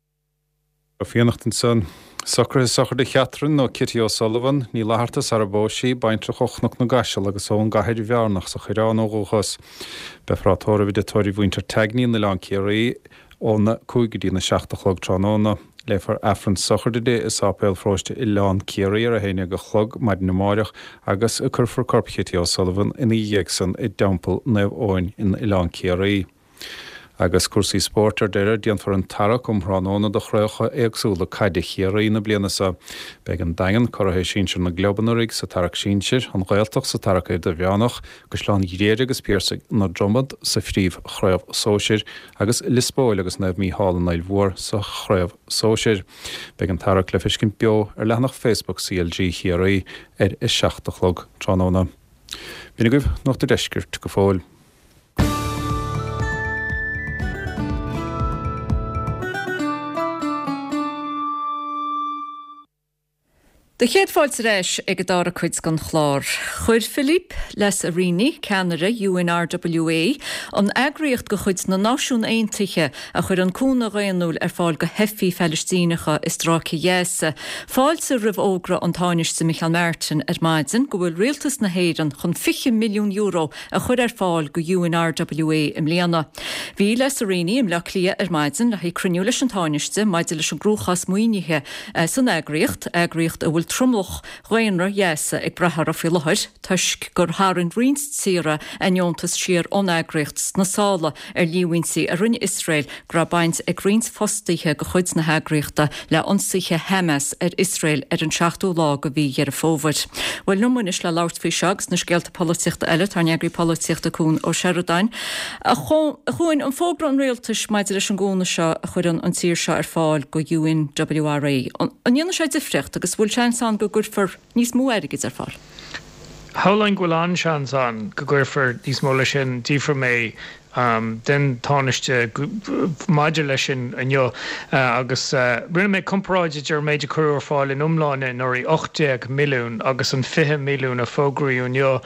S10: Ó Fiannachta ansan. Socruithe sochraide Chatherine nó Kitty O'Sullivan, Ní Fhlatharta sara bpós sí, baintreach ó Chnoc na gCaiseal agus ón gCathair Bhearnach sa Choireán ó dhúchas. Beifear á tórramh i dTigh Tórraimh Mhuintir Tagney in Oileán Ciarraí óna 5 go dtína 7 a chlog tráthnóna. Léifear Aifreann sochraide di i Sáipéal Pharóiste Oileán Ciarraí ar 11 a chlog maidin amáireach agus cuirfear corp Chitty O'Sullivan ina dhiaidh san i dTeampall Naomh Eoin in Oileán Ciarraí. Agus cúrsaí spóirt ar deireadh, déanfar an tarrac um thráthnóna do chraobhacha éagsúla caide Chiarraí na bliana seo. Beidh an Daingean, curaithe sinsir na gclub anuraidh, sa tarrac sinsir, an Ghaeltacht sa tarrac idirmheánach, Caisleán Ghriaire agus Piarsaigh na Dromad sa phríomh-chraobh sóisir, agus Lios Póil agus Naomh Mícheál an Fhaill Mhór sa chraobh sóisir. Beidh an tarrac le feiscint beo ar leathanach Facebook CLG Chiarraí ar a 7 a chlog tráthnóna. B'in agaibh Nuacht an Deiscirt go fóill.
S1: Do chéad fáilte ar ais ag an dara cuid den chlár. Chuir Philippe Lazzarini, ceannaire UNRWA, an eagraíocht de chuid na Náisiún Aontaithe a chuireann cúnamh dhaonnúil ar fáil do theifigh Phalaistíneacha i Stráice Ghaza, fáilte roimh fhógra an Tánaiste Micheál Martin ar maidin go bhfuil Rialtas na hÉireann chun €20 milliún a chur ar fáil go UNRWA i mbliana. Bhí Lazzarini i mBleá Cliath ar maidin le haghaidh cruinniú leis an Tánaiste maidir leis an gcruachás maoinithe san eagraíocht, eagraíocht a bhfuil tromlach dhaonra Ghaza ag brath uirthi faoi láthair toisc gur tharraing roinnt tíortha a ndeontas siar ón eagraíocht sna sála ar líomhaintí a rinne Iosrael go raibh baint ag roinnt fostaithe de chuid na heagraíochta le ionsaithe Hamas ar Iosrael ar an seachtú lá de mhí Dheireadh Fómhair. Bhuel, liom anois le labhairt faoi seo agus na scéalta polaitíochta eile tá ár n-eagraí polaitíochta Cuan Ó Seireadáin. A Chuain, an fógra an rialtais maidir leis an gcúnamh seo a chuireann an tír seo ar fáil go UNWRA, an ndéanfaidh sé difríocht agus bhfuil seans ann go gcuirfear níos mó airgid ar fáil?
S14: Shamhlóinn go bhfuil an-seans ann go gcuirfear níos mó leis sin. D'fhiafraigh mé den Tánaiste maidir leis sin inniu agus rinne mé comparáid idir an méid a cuireadh ar fáil in iomláine anuraidh, 18 milliún, agus an 20 milliún a fógraíodh inniu.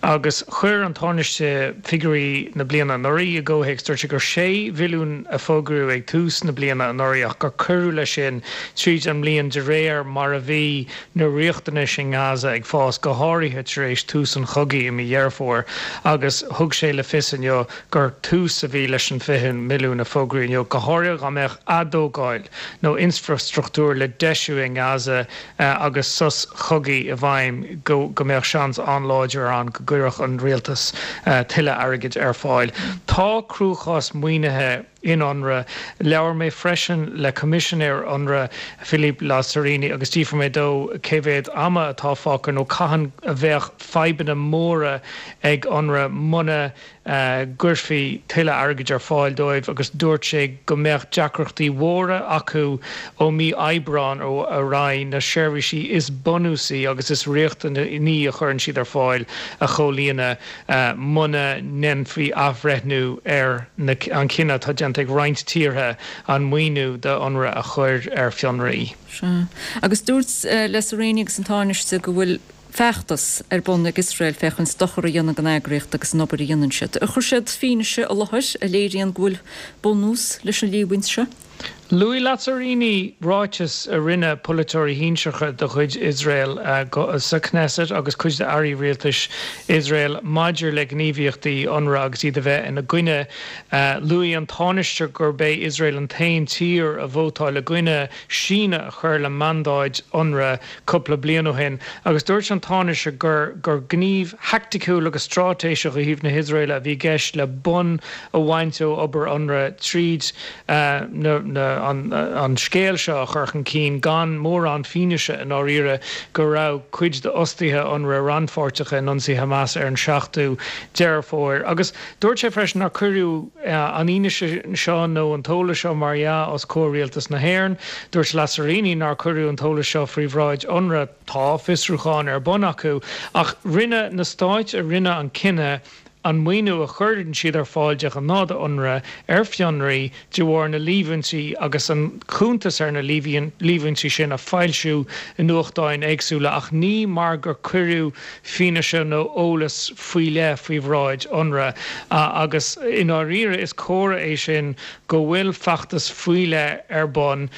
S14: Agus chuir an Tánaiste figiúirí na bliana anuraidh i gcomhthéacs. Dúirt sé gur 6 mhilliún a fógraíodh ag tús na bliana anuraidh ach gur cuireadh leis sin tríd an mbliain de réir mar a bhí na riachtanais i nGaza ag fás, go háirithe tar éis tús an chogaidh i mí Dheireadh Fómhair, agus thug sé le fios inniu gur tús a bhí leis an 20 milliún a fógraíodh inniu, go háirithe dá mbeadh atógáil nó infrastruchtúr le deisiú i nGaza agus sos cogaidh i bhfeidhm, go mbeadh seans an-láidir ann go gcuirfeadh an rialtas tuilleadh airgid ar fáil. Tá cruachás maoinithe. in Unrwa. Labhair mé freisin le Coimisinéir Unrwa, Philippe Lazzarini, agus d'fhiafraigh mé dó cé mhéad ama atá fágtha nó cathain a bheadh fadhbanna móra ag Unrwa muna gcuirfí tuilleadh airgid ar fáil dóibh agus dúirt sé go mbeadh deacrachtaí mhóra acu ó mí Aibreáin ar aghaidh na seirbhísí is bunúsaí agus is riachtanaí a chuireann siad ar fáil a chomhlíonadh. muna ndéanfaí athbhreithniú ar an chinneadh atá déanta ag roinnt tíortha an maoiniú do Unrwa a chur ar fionraí.
S1: Sea. Agus dúirt Lazzarini agus an Tánaiste go bhfuil feachtas ar bun ag Iosrael féachaint dochar a dhéanamh don eagraíocht agus an obair a dhéanann siad. Ar chuir siad fianaise i láthair a léiríonn go bhfuil bunús leis an líomhaint seo?
S14: Luaigh Lazzarini ráiteas a rinne polaiteoirí shinsearacha de chuid Iosrael sa Knesset agus cuid d'airí rialtais Iosrael maidir le gníomhaíochtaí Unrwa agus iad a bheith ina gcoinne. Luaigh an Tánaiste gurb é Iosrael an t-aon tír a vótáil i gcoinne síneadh a chur le mandáid Unrwa cúpla bliain ó shin agus dúirt an Tánaiste gur gur gníomh thaicticiúil agus straitéiseach ó thaobh na hIosraeile a bhí i gceist le bonn a bhaint ó obair Unrwa tríd na an scéal seo a chur chun cinn gan mórán fianaise i ndáiríre go raibh cuid d'fhostaithe Unrwa rannpháirteach in ionsaí Hamas ar an 7ú Deireadh Fómhair. Agus dúirt sé freisin nár cuireadh an fhianaise seo nó an t-eolas seo mar dhea os comhair Rialtas na hÉireann. Dúirt Lazzarini nár cuireadh an t-eolas seo faoi bhráid Unrwa. Tá fiosrúchán ar bun acu ach rinne na stáit a rinne an cinneadh an maoiniú a chuireann siad ar fáil de ghnáth do Unrwa ar fionraí de bharr na líomhaintí agus an cuntas ar na líomhaintí sin a foilsiú i nuachtáin éagsúla ach ní mar gur cuireadh fianaise nó eolas faoi leith faoi bhráid Unrwa agus i ndáiríre is comhartha é sin go bhfuil feachtas faoi leith ar bun.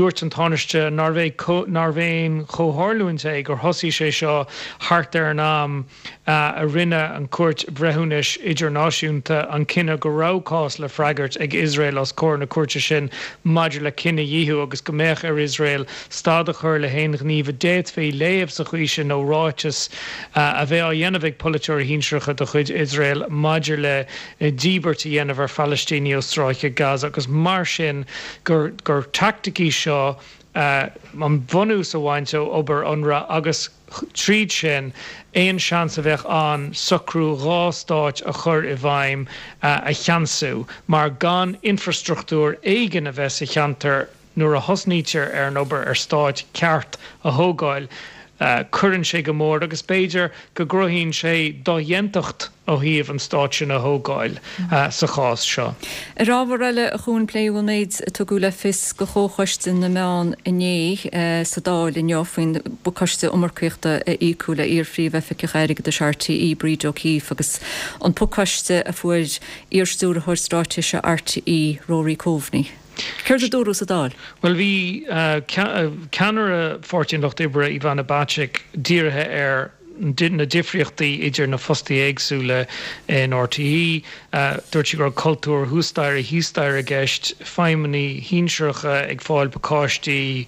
S14: Dúirt an Tánaiste nárbh é nárbh aon chomhtharlúint é gur thosaigh sé seo thart ar an am a rinne an Chúirt Bhreithiúnais Idirnáisiúnta an cinneadh go raibh cás le freagairt ag Iosrael os comhair na cúirte sin maidir le cinedhíothú agus go mbeadh ar Iosrael stad a chur le haon ghníomh a d'fhéadfaí léamh sa chaoi sin nó ráiteas a bheith á dhéanamh ag polaiteoirí shinsearacha de chuid Iosrael maidir le díbirt a dhéanamh ar Phalaistínigh ó Stráice Gaza agus mar sin gur gur teaictic í seo an bunús a bhaint ó obair Unrwa agus tríd sin aon seans a bheadh ann socrú dha stáit a chur i bhfeidhm a cheansú mar gan infrastruchtúr éigin a bheith sa cheantar nuair a thosnaítear ar an obair ar stáit ceart a thógáil cuireann sé go mór agus b'fhéidir go gcruthaíonn sé dodhéantacht ó thaobh an stát sin a thógáil sa chás seo.
S1: Ar ábhar eile, a Chuain, pléadh an méid a tugadh le fios do Chomhchoiste na Meán inné sa Dáil inniu faoin bpacáiste iomarcaíochta a íocadh le iar-Phríomh-Oifigeach Airgeadais RTÉ, Bríd O'Keeffe, agus an pacáiste a fuair iar-Stiúrthóir Straitéise RTÉ, Rory Coveney. Céard a dúradh sa Dáil?
S14: Bhuel, bhí ceannaire Pháirtí an Lucht Oibre, Ivana Bacik, dírithe ar na difríochtaí idir na fostaithe éagsúla in RTÉ. Dúirt sí go raibh cultúr thuas staighre thíos staighre i gceist, feidhmeannaigh shinsearacha ag fáil pacáistí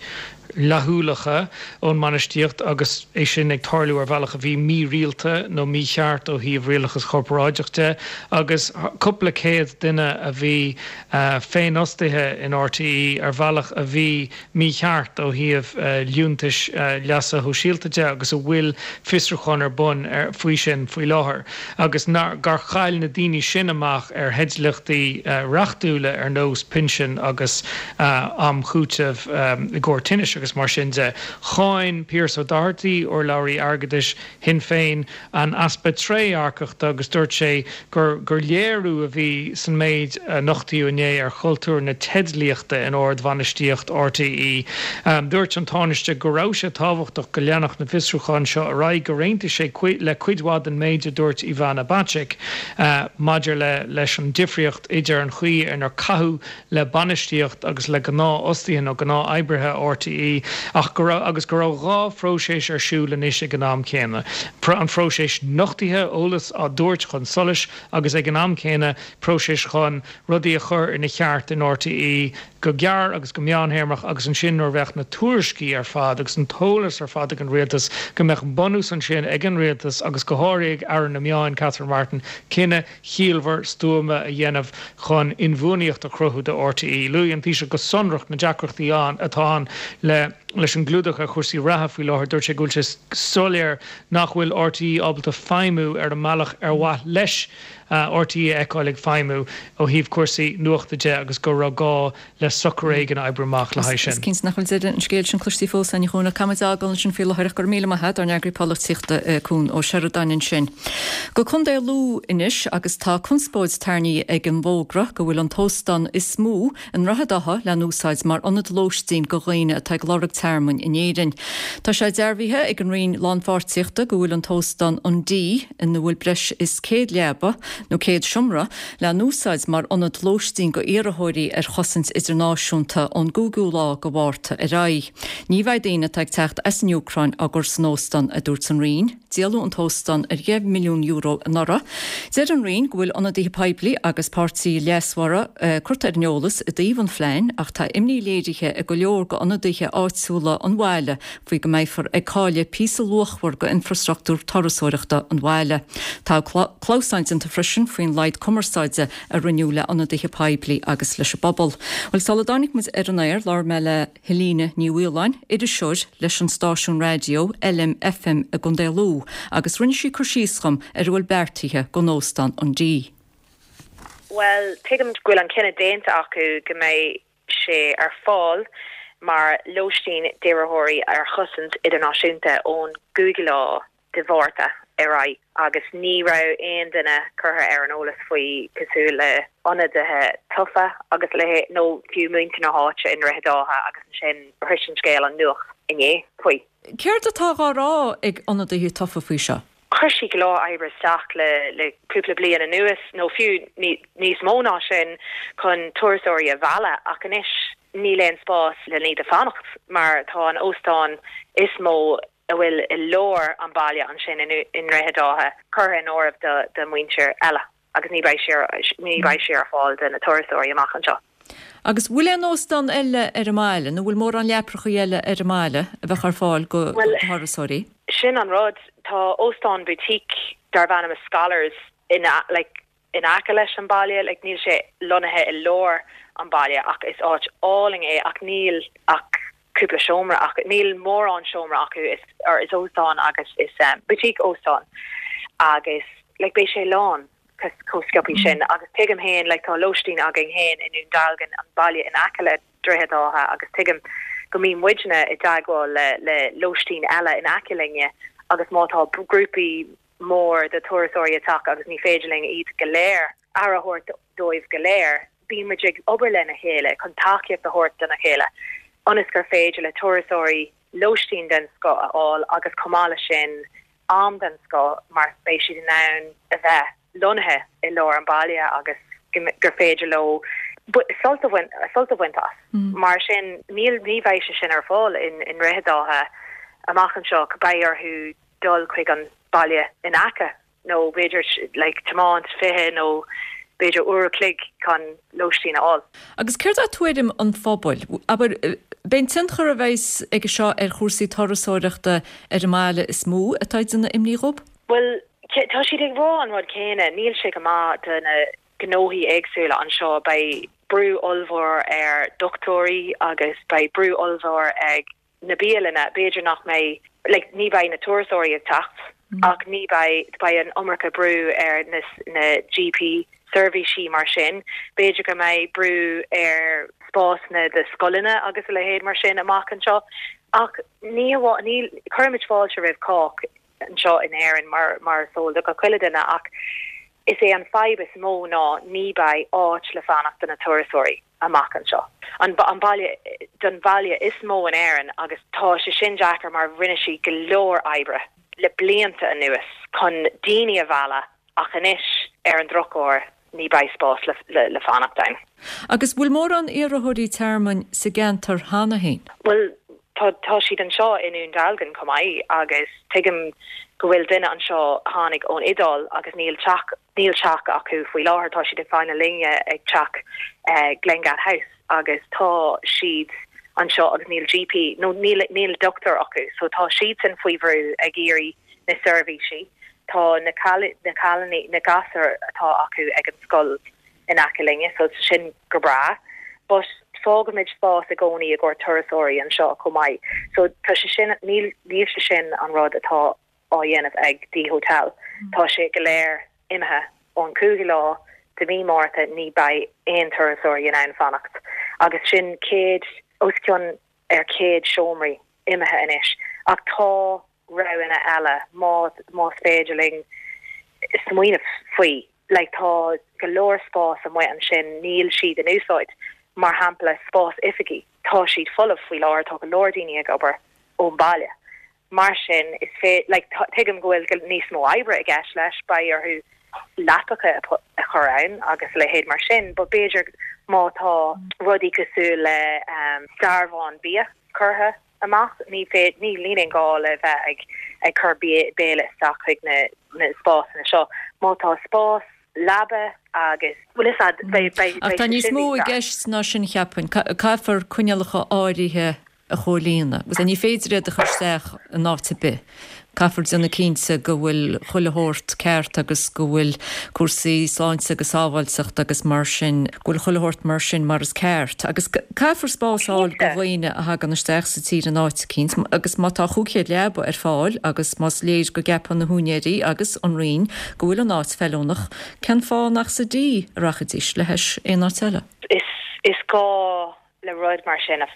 S14: fhlaithiúlacha ón mbainistíocht agus é sin ag tarlú ar bhealach a bhí mírialta nó mícheart ó thaobh rialachas corparáideach de agus cúpla céad duine a bhí féinfhostaithe in RTÉ ar bhealach a bhí mícheart ó thaobh liúntais leasa shóisialta de agus a bhfuil fiosrúchán ar bun faoi sin faoi láthair agus gur chaill na daoine sin amach ar theidlíochtaí reachtúla ar nós pinsin agus am chúitimh i gcomhair tinnis agus mar sin de. Cháin Pearse Doherty, urlabhraí airgeadais Shinn Féin, an easpa trédhearcachta agus dúirt sé gur gur léiriú a bhí san méid a nochtaíodh inné ar chultúr na teidlíochta in ard-bhainistíocht RTÉ. Dúirt an Tánaiste go raibh sé tábhachtach go leanfadh na fiosrúcháin seo ar aghaidh, gur aontaigh sé le cuid mhaith den méid a dúirt Ivana Bacik maidir le leis an difríocht idir an chaoi inar caitheadh le bainistíocht agus le gnáthfhostaithe nó gnáth-oibrithe RTÉ ach go raibh agus go raibh dha phróiseas ar siúl anois ag an am céanna, an phróiseas nochtaithe, eolas á dtabhairt chun solais agus ag an am céanna próiseas chun rudaí a chur ina cheart in RTÉ go gearr agus go meánthéarmach agus ansin nuair a bheadh na tuairiscí ar fad agus an t-eolas ar fad ag an rialtas go mbeadh bunús ansin ag an rialtas agus go háirithe ag Aire na Meáin Catherine Martin cinneadh chiallmhar stuama a dhéanamh chun inbhuanaíocht a chruthú do RTÉ. Luaigh an Taoiseach go sonrach na deacrachtaí ann atá ann le leis an gclúdach ar chúrsaí reatha faoi láthair. Dúirt sé go bhfuil sé soiléir nach bhfuil RTÉ ábalta feidhmiú ar an mbealach ar mhaith leis RTÉ a fheiceáil ag feidhmiú ó thaobh cúrsaí nuachta de agus go raibh gá le socrú éigin a oibriú amach le haghaidh
S1: sin. Is cinnte nach bhfuil deireadh an scéil sin cloiste fós againn a Chuain ach caithfimid é a fhágáil ansin faoi láthair ach go raibh míle maith agat ár n-eagraí polaitíochta Cuan Ó Seireadáin ansin. Go Contae Lú anois agus tá conspóid tarraingthe ag an bhfógra go bhfuil an t-óstán is mó i nDroichead Átha le n-úsáid mar ionad lóistín go dhaoine atá ag lorg tearmainn in Éirinn. Tá sé dearbhaithe ag an Roinn Lánpháirtíochta go bhfuil an t-óstán An Dee ina bhfuil breis is 100 leaba nó 100 seomra le n-úsáid mar ionad lóistín go iarrthóirí ar chosaint idirnáisiúnta. náisiúnta ón gcúigiú lá de Mhárta ar aghaidh. Ní bheidh daoine atá ag teacht as an Úcráin á gcur san óstán, a dúirt an Roinn. Díoladh an t-óstán ar €10 milliún anuraidh. Deir an Roinn go bhfuil ionadaithe poiblí agus páirtithe leasmhara curtha ar an eolas i dtaobh an phlean ach tá imní léirithe ag go leor d'ionadaithe áitiúla an bhaile faoi go mbeifear ag cailleadh píosa luachmhar d'infrastruchtúr turasóireachta an bhaile. Tá clamhsán déanta freisin faoin laghad cumarsáide a rinneadh le ionadaithe poiblí agus leis an bpobal. Bhuel, sula dtáinig muid ar an aer, labhair mé le Helena Ní Mhaoláin, iriseoir leis an stáisiún raidió LMFM i gContae Lú, agus rinne sí cur síos dhom ar a bhfuil beartaithe don Óstán an Dee.
S15: Bhuel, tuigim go bhfuil an cinneadh déanta acu go mbeidh sé ar fáil mar lóistín d'iarrthóirí ar chosaint idirnáisiúnta ón gcúigiú lá de Mhárta ar aghaidh agus ní raibh aon duine curtha ar an eolas faoi cosúil le ionadaithe tofa agus a leithéid nó fiú muintir na háite i nDroichead Átha agus ansin shrois an scéal an nuacht inné faoi.
S1: Céard atá á rá ag ionadaithe tofa faoi seo?
S15: Chuir siad go leor oibre isteach le le cúpla bliain anuas nó fiú níos mó ná sin chun turasóirí a mhealladh ach anois níl aon spás le iad a fanacht mar tá an óstán is mó a bhfuil i lár an bhaile ansin i nDroichead Átha curtha in áirithe do mhuintir eile agus ní beidh sé ní beidh sé ar fáil do na turasóirí amach anseo.
S1: Agus bhfuil aon óstán eile ar an mbaile nó bhfuil mórán leaprachaí eile ar an mbaile a bheadh ar fáil do thurasóirí?
S15: Sin an rud, tá óstán boutique darb ainm Scholars in like in aice leis an baile, like níl sé lonnaithe i lár an baile ach is áit álainn é ach níl ach cúpla seomra acu, níl mórán seomra acu, is or is óstán agus is boutique óstán agus like beidh sé lán chomh sciobthaí sin agus tuigim féin like tá lóistín againn féin i nDún Dealgan, an baile in aice le Droichead Átha agus tuigim go mbíonn muidne i dteagmháil le le lóistín eile in aice linne agus má tá grúpaí mór de turasóirí ag teacht agus ní féidir linn iad go léir, aire a thabhairt dóibh go léir. Bíonn muid ag obair lena chéile chun tacaíocht a thabhairt dona chéile ionas gur féidir le turasóirí lóistín den scoth a fháil agus chomh maith leis sin am den scoth mar beidh siad in ann a bheith lonnaithe i lár an bhaile agus gur féidir leo sult a bhaint as. Mar sin níl, ní bheidh sé sin ar fáil i nDroichead Átha amach anseo, beidh orthu dul chuig an baile in aice nó b'fhéidir like tiomáint 20 nó b'fhéidir uair a chloig chun lóistín a fháil.
S1: Agus céard é tuairim an phobail? Abair, b'é an tionchar a bheas aige seo ar chúrsaí turasóireachta ar an mbaile is mó atá ag déanamh imní dhób?
S15: Bhuel, tá siad ag rá an rud céanna, níl sé go maith do na gnóthaí éagsúla anseo, beidh brú ollmhór ar dochtúirí agus beidh brú ollmhór ag na bialanna, b'fhéidir nach mbeidh, like, ní bheidh na turasóirí ag teacht ach ní bheidh, beidh an iomarca brú ar na, na GP seirbhísí mar sin, b'fhéidir go mbeidh brú ar spásanna do scoileanna agus a leithéid mar sin amach anseo ach ní hamháin, ní, cuirimid fáilte roimh chách anseo in Éirinn mar, mar is eol do gach uile duine ach is é an fadhb is mó ná ní beidh áit le fanacht do na turasóirí. amach anseo. An baile don bhaile is mó in Éirinn agus tá sé sin deacair mar rinne siad go leor oibre le blianta anuas chun daoine a mhealladh ach anois ar an drochuair ní beidh spás le fanacht ann.
S1: Agus bhfuil mórán iarrthóirí tearmainn sa gceantar cheana féin?
S15: Bhuel tá tá siad anseo i nDún Dealgan chomh maith agus tuigim go bhfuil duine anseo a tháinig ón Iodáil agus níl teach Níl teach acu faoi láthair, tá siad ag fanacht linne ag teach Glengad House agus tá siad anseo agus níl GP nó níl níl dochtúir acu so tá siadsan faoi bhrú ag iarraidh na seirbhísí. Tá na na cailíní, na gasúir atá acu ag an scoil in aice linne so tá sin go breá but fágaimid spás i gcónaí i gcomhair turasóirí anseo chomh maith so tá sé sin níl níl sé sin an rud atá á dhéanamh ag Dee Hotel. Tá sé go léir imithe ón 5ú lá de mhí Márta ní beidh aon turasóirí in ann fanacht agus sin 100, os cionn ar 100 seomraí imithe anois. Ach tá roghanna eile má más féidir linn smaoineamh faoi. Like tá go leor spás amuigh ansin níl siad in úsáid. Mar shampla spás oifigí, tá siad folamh faoi láthair, tá go leor daoine ag obair ón baile. Mar sin, is fé, like, tuigim go bhfuil níos mó oibre i gceist leis, beidh orthu leapacha a chur ann agus a leithéid mar sin, but b'fhéidir. Má tá rudaí cosúil le dearbhán bia curtha amach, ní féidir, níl aon gá le bheith ag ag cur béile isteach chuig na na spásanna seo. Má tá spás leaba agus, bhfuil fhios a'd, beidh beidh
S1: Ach tá
S15: sé
S1: níos
S15: sin
S1: mó
S15: níos
S1: i
S15: fearr.
S1: gceist ná sin, cheapfainn. Caithfear coinníollacha áirithe a chomhlíonadh. Agus ní féidir iad a chur isteach in áit ar bith. Caithfear déanamh cinnte go bhfuil chuile shórt ceart agus go bhfuil cúrsaí sláinte agus sábháilteachta agus mar sin, go bhfuil chuile shórt mar sin mar is ceart. Agus caithfear spás a fháil do dhaoine a thagann isteach sa tír in áit eicínt agus má tá 500 leaba ar fáil agus más léir go gceapann na húinéirí agus an Roinn go bhfuil an áit feiliúnach, cén fáth nach sa D a rachaidís le hais aon áit eile?
S15: Is gá le rud mar sin,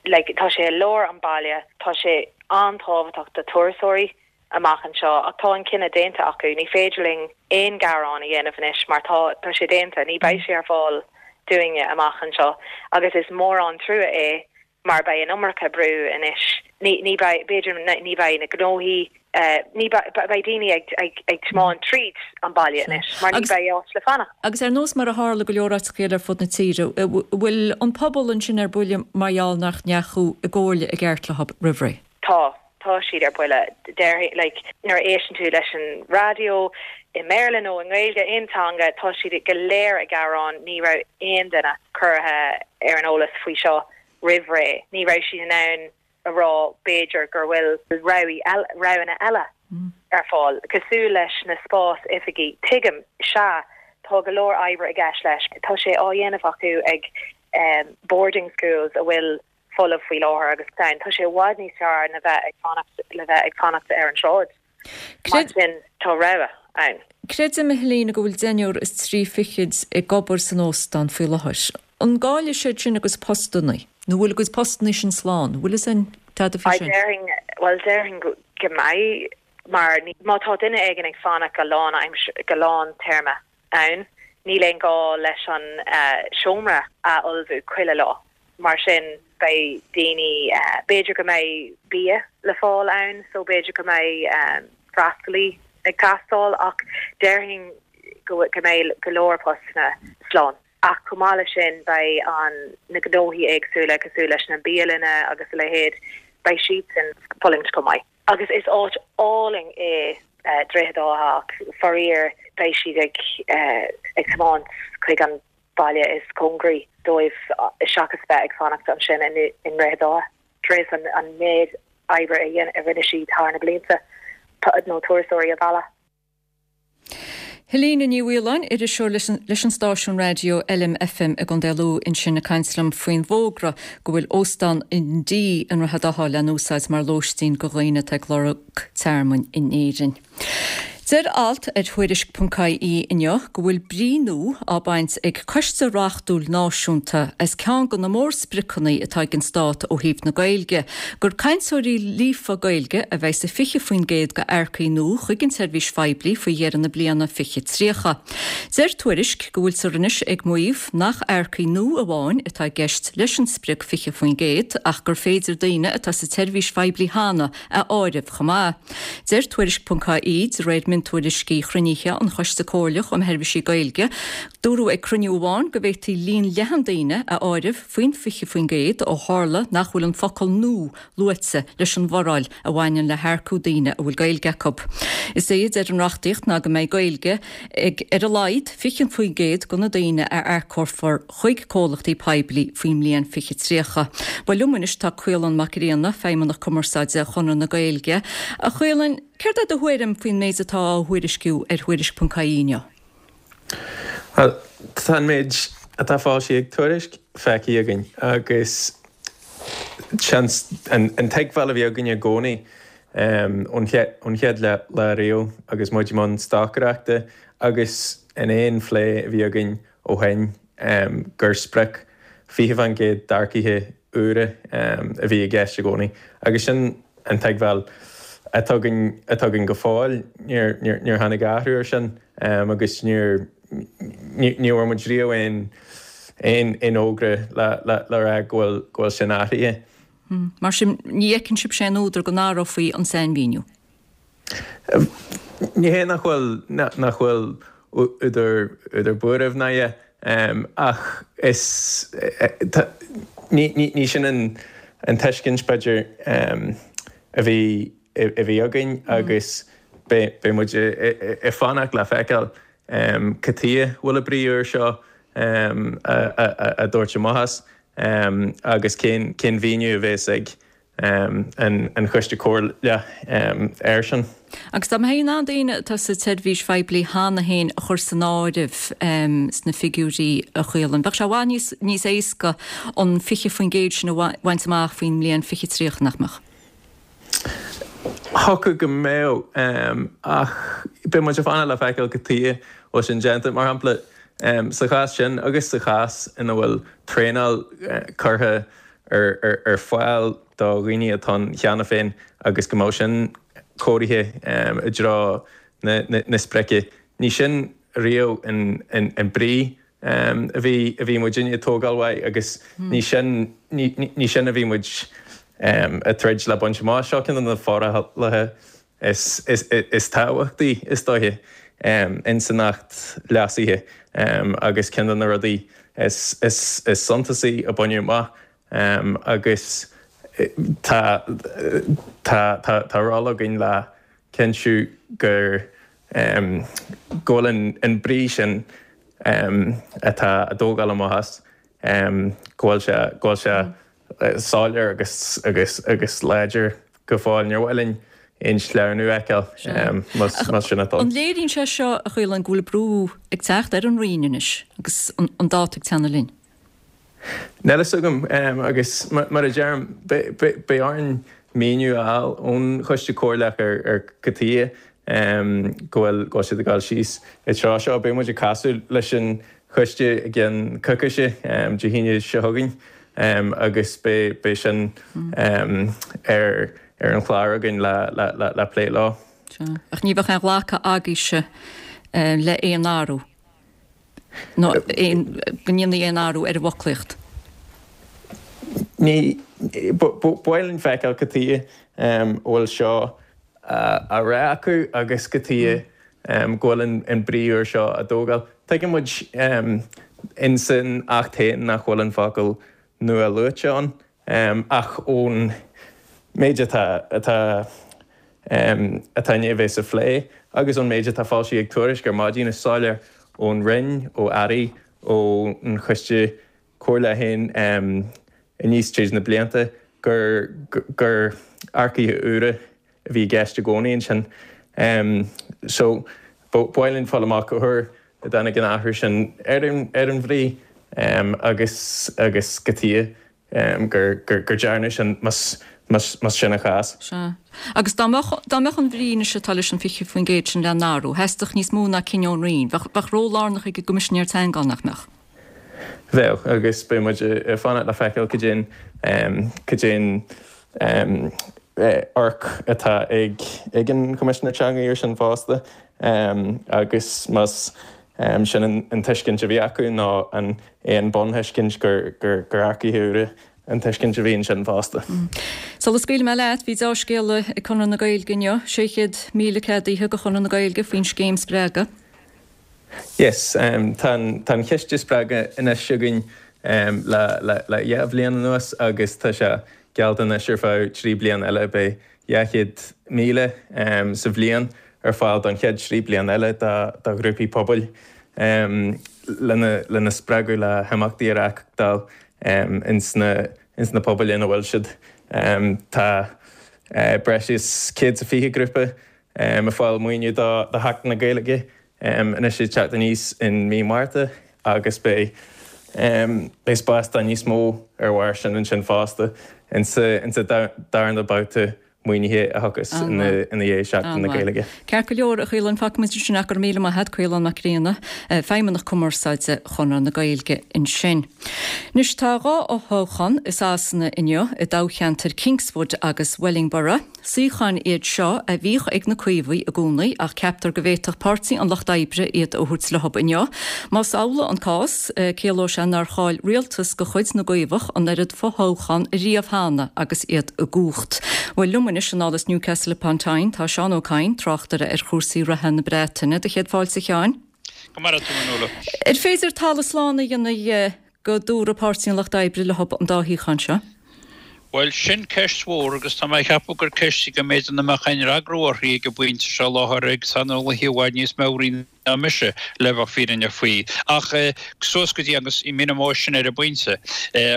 S15: like, tá sé i lár an baile, tá sé an-tábhachtach do turasóirí amach anseo ach tá an cinneadh déanta acu, ní féidir linn aon gearán a dhéanamh anois mar tá, tá sé déanta, ní beidh sé ar fáil dúinne amach anseo agus is mór an trua é mar beidh an iomarca brú anois, ní, ní beidh, b'fhéidir ní beidh na gnóthaí Ní beidh daoine ag tiomáint tríd an baile anois mar ní beidh áit le fanacht.
S1: Agus ar nós mar a tharla go leor áiteacha eile ar fud na tíre, bhfuil an pobal ansin ar buile mar gheall nach ndeachaigh i gcomhairle i gceart leo roimh ré?
S15: Tá. Tá siad ar buile. Déarfainn, like, nuair a éisteann tú leis an raidió, i mBéarla nó i nGaeilge, aon teanga, tá siad go léir ag gearán, ní raibh aon duine curtha ar an eolas faoi seo roimh ré. Ní raibh siad in ann a rá b'fhéidir gur bhfuil roghanna eile ar fáil, cosúil leis na spás oifigí. Tuigim, sea, tá go leor oibre i gceist leis. Tá sé á dhéanamh acu ag boarding schools a bhfuil folamh faoi láthair agus tá sé i bhfad níos fearr na bheith ag fanacht le bheith ag fanacht ar an tsráid. Mar sin, tá rogha ann.
S1: Creidim, a Helena, go bhfuil deichniúr is trí fichid ag obair san óstán faoi láthair. An gcaillfidh siad sin a gcuid postannaí? Nó bhfuil a gcuid postannaí sin slán? Bhfuil fhios a'inn tada faoi sin?
S15: Déarfainn, bhuel, déarfainn go mbeidh, mar má tá duine éigin ag fanacht go lán go lán téarma ann, níl aon gá leis an seomra a fholmhú chuile lá. Mar sin, beidh daoine, b'fhéidir go mbeidh bia le fáil ann so b'fhéidir go mbeidh freastalaí ag teastáil ach déarfainn go mbeidh go leor postanna slán. Ach chomh maith leis sin beidh an na gnóthaí éagsúla cosúil leis na bialanna agus a leithéid, beidh siadsan fulaingt chomh maith. Agus is áit álainn é Droichead Átha ach faraor beidh siad ag ag tiomáint chuig an baile is cóngaraí dóibh seachas bheith ag fanacht ansin i nDroichead Átha tar éis an méid oibre a rinne siad thar na blianta nó turasóirí a mhealladh.
S1: Helena Ní Mhaoláin, iriseoir leis an stáisiún raidió LMFM i gContae Lú ansin ag caint liom faoin bhfógra go bhfuil Óstán an D i nDroichead Átha le n-úsáid mar lóistín go dhaoine atá ag lorg tearmainn in Éirinn. Deir alt ar Tuairisc.ie inniu go bhfuil brí nua á baint ag Coiste Reachtúil Náisiúnta as ceann de na mórspriocanna atá ag an Stát ó thaobh na Gaeilge, gur cainteoirí líofa Gaeilge a bheidh sa 20% d'earcaigh nua chuig an tseirbhís phoiblí faoi dheireadh na bliana 2030. Deir Tuairisc go bhfuiltear anois ag maíomh nach earcaigh nua amháin atá i gceist leis an sprioc 20% ach gur féidir daoine atá sa tseirbhís phoiblí cheana a áireamh chomh maith. Deir Tuairisc.ie, de réir miontuairiscí chruinnithe an Choiste Comhairleach um Sheirbhísí Gaeilge, dúradh ag cruinniú amháin go bhféadfaí líon leathan daoine a áireamh faoin 20% ó tharla nach bhfuil an focal 'nua' luaite leis an bhforáil a bhaineann le hearcú daoine a bhfuil Gaeilge acu. Is é a deir an reachtaíocht ná go mbeidh Gaeilge ag ar a laghad 20% de na daoine a earcófar chuig comhlachtaí poiblí faoin mbliain 2030. Bhuel liom anois tá Caolán Mac Grianna, Feidhmeannach Cumarsáide Chonradh na Gaeilge. A Chaoláin, céard é do thuairim faoin méid atá á thuairisciú ar Thuairisc.ie inniu?
S16: Bhuel, tá an méid atá foilsithe ag Tuairisc feicthe againn agus seans an tuigbheáil a bhí againn i gcónaí ón chéad lá riamh agus muid i mbun stocaireachta agus in aon phlé a bhí againn ó shin gur sprioc 20% d'earcaithe úra a bhí i gceist i gcónaí agus sin an tuigbheáil atá againn atá againn go fóill. Níor níor tháinig athrú ar sin agus níor ní bhfuair muid riamh aon aon aon fhógra le le le rá go bhfuil go bhfuil sin athraithe.
S1: Mar sin ní fheiceann sibhse aon údar go n-athrófaí an sainmhíniú?
S16: Ní hé nach bhfuil nach bhfuil údar údar buairimh ná a dhath. Ach is, ní sin an tuiscint, b'fhéidir, a bhí a bhí againn agus beidh muid ag fanacht le feiceáil cad chuige a bhfuil an brí úr seo á dtabhairt amach as agus cén mhíniú a bheas ag an Choiste Comhairleach air sin.
S1: Agus dá mbeifí in ann daoine atá sa tseirbhís phoiblí cheana féin a chur san áireamh sna figiúirí, a Chaoláin, bheadh sé i bhfad níos éasca an 20% sin a bhaint amach faoin mbliain 2030, nach mbeadh?
S16: Thiocfadh go mbeadh, ach beidh muid ag fanacht le feiceáil cad chuige a bhfuil sin déanta. Mar shampla, sa chás sin agus sa chás ina bhfuil traenáil curtha ar fáil do dhaoine atá ann cheana féin agus go mbeadh sin cóirithe i dtreo na sprice. Ní sin riamh an brí a bhí a bhí muidinne ag tógáil uaidh agus ní sin ní sin a bhí muid ag troid le baint amach. Seo ceann de na forálacha is is tábhachtaí is dóiche ins an Acht leasaithe agus ceann de na rudaí is is is suntasaí a baineadh amach agus tá tá tá tá ról againn le cinntiú gur go bhfuil an brí sin atá á dtógáil amach as, go bhfuil sé, go bhfuil sé soiléir agus, agus, agus láidir go fóill. Níor mhaith linn aon sleamhnú a fheiceáil más sin atá ann.
S1: An léiríonn sé seo, a Chaoláin, go bhfuil brú ag teacht ar an Roinn anois agus an dáta ag teannadh linn?
S16: Níl fhios agam, agus mar a deirim, beidh orainn míniú a fháil ón Choiste Comhairleach ar cad chuige go bhfuil siad ag dul síos an treo seo. Beidh muid ag casadh leis an choiste i gceann coicíse, Dé hAoine seo chugainn, agus beidh sin ar an chlár againn le plé leo.
S1: Ach ní bheadh aon ghlacadh agaibhse le aon athrú? nó aon, go ndéanfaí aon athrú ar an bhfoclaíocht?
S16: Ní, ba mhaith linn feiceáil cad chuige a bhfuil seo á rá acu agus cad chuige go bhfuil an brí úr seo á dtógáil. Tuigeann muid ins an Acht féin nach bhfuil an focal nua luaite ann ach ón méid atá atá atá i ndiaidh a bheith sa phlé agus ón méid atá foilsithe ag Tuairisc ar maidin, is soiléir ón Roinn, ó Airí, ón Choiste Comhairleach féin aníos tríd na blianta gur gur earcaithe úra a bhí i gceist i gcónaí ansin. So, ba mhaith linn fáil amach cá huair a dtáinig an athrú sin ar an bhrí agus agus cad chuige gur gur dearnadh sin más más sin an chás.
S1: Sea. Agus dá mbeadh dá mbeadh an bhrí anois atá leis an 20% sin le n-athrú, theastódh níos mó ná cinneadh ón Roinn. Bheadh bheadh ról lárnach ag an gCoimisinéir Teanga ann, nach mbeadh?
S16: Bheadh, agus beidh muid ag fanacht le feiceáil cad é an cad é an amharc atá ag ag an Choimisinéir Teanga air sin fosta agus más sin an tuiscint a bhí acu nó an é an bunthuiscint gur gur gur earcaithe úra an tuiscint a bhí ansin fosta.
S1: Sula scaoilfidh mé leat, bhí deá-scéala ag Conradh na Gaeilge inniu, 600,000 ceadaithe do Chonradh na Gaeilge faoin scéim Spreagadh.
S16: Yes, tá an chiste Spreagadh anois againn le le 2 bhliain anuas agus tá sé geallta anois ar feadh 3 bliana eile. Beidh 200,000 sa bhliain ar fáil don chéad 3 bliana eile do ghrúpaí pobail lena lena spreagadh le himeachtaí a reáchtáil ins na ins na pobail ina bhfuil siad. Tá breis is 120 grúpa ag fáil maoiniú do Sheachtain na Gaeilge anois ag teacht aníos in mí Márta agus beidh beidh spás do níos mó ar bharr sin ansin fosta insa darna babhta maoinithe a thiocfas ina dhiaidh Seachtain na Gaeilge.
S1: Ceart go leor, a Chaoláin, fágfaidh muid ansin é, go raibh míle maith agat, Caolán Mac Grianna, Feidhmeannach Cumarsáide Chonradh na Gaeilge ansin. Anois tá 2 fhothoghchán i Sasana inniu i dtoghcheantair Kingswood agus Wellingborough. Suíocháin iad seo a bhíodh ag na Caomhaigh i gcónaí ach ceaptar go bhféadfadh Páirtí an Lucht Oibre iad a thabhairt leo inniu. Más amhlaidh an cás, ciallóidh sé nár chaill rialtas de chuid na gCaomhach an oiread fothoghchán riamh cheana agus iad i gcumhacht. Bhuel, liom anois anall as Newcastle upon Tyne tá Seán Ó Cadhain, tráchtaire ar chúrsaí reatha na Breataine. Do chéad fáilte, a Sheáin.
S17: Go maire tú, a Nuala.
S1: Ar féidir talamh slán a dhéanamh go dtabharfaidh Páirtí an Lucht Oibre leo an dá shuíochán seo?
S17: Bhuel, sin ceist mhór agus tá mé ag ceapadh gur ceist í go mb'fhéidir nach mbeadh aon fhreagra uirthi ag an bpointe seo i láthair ag saineolaithe i bhfad níos meabhraí ná mise, le bheith fírinneach faoi. Ach suas go dtí agus míneoidh mé sin ar an bpointe,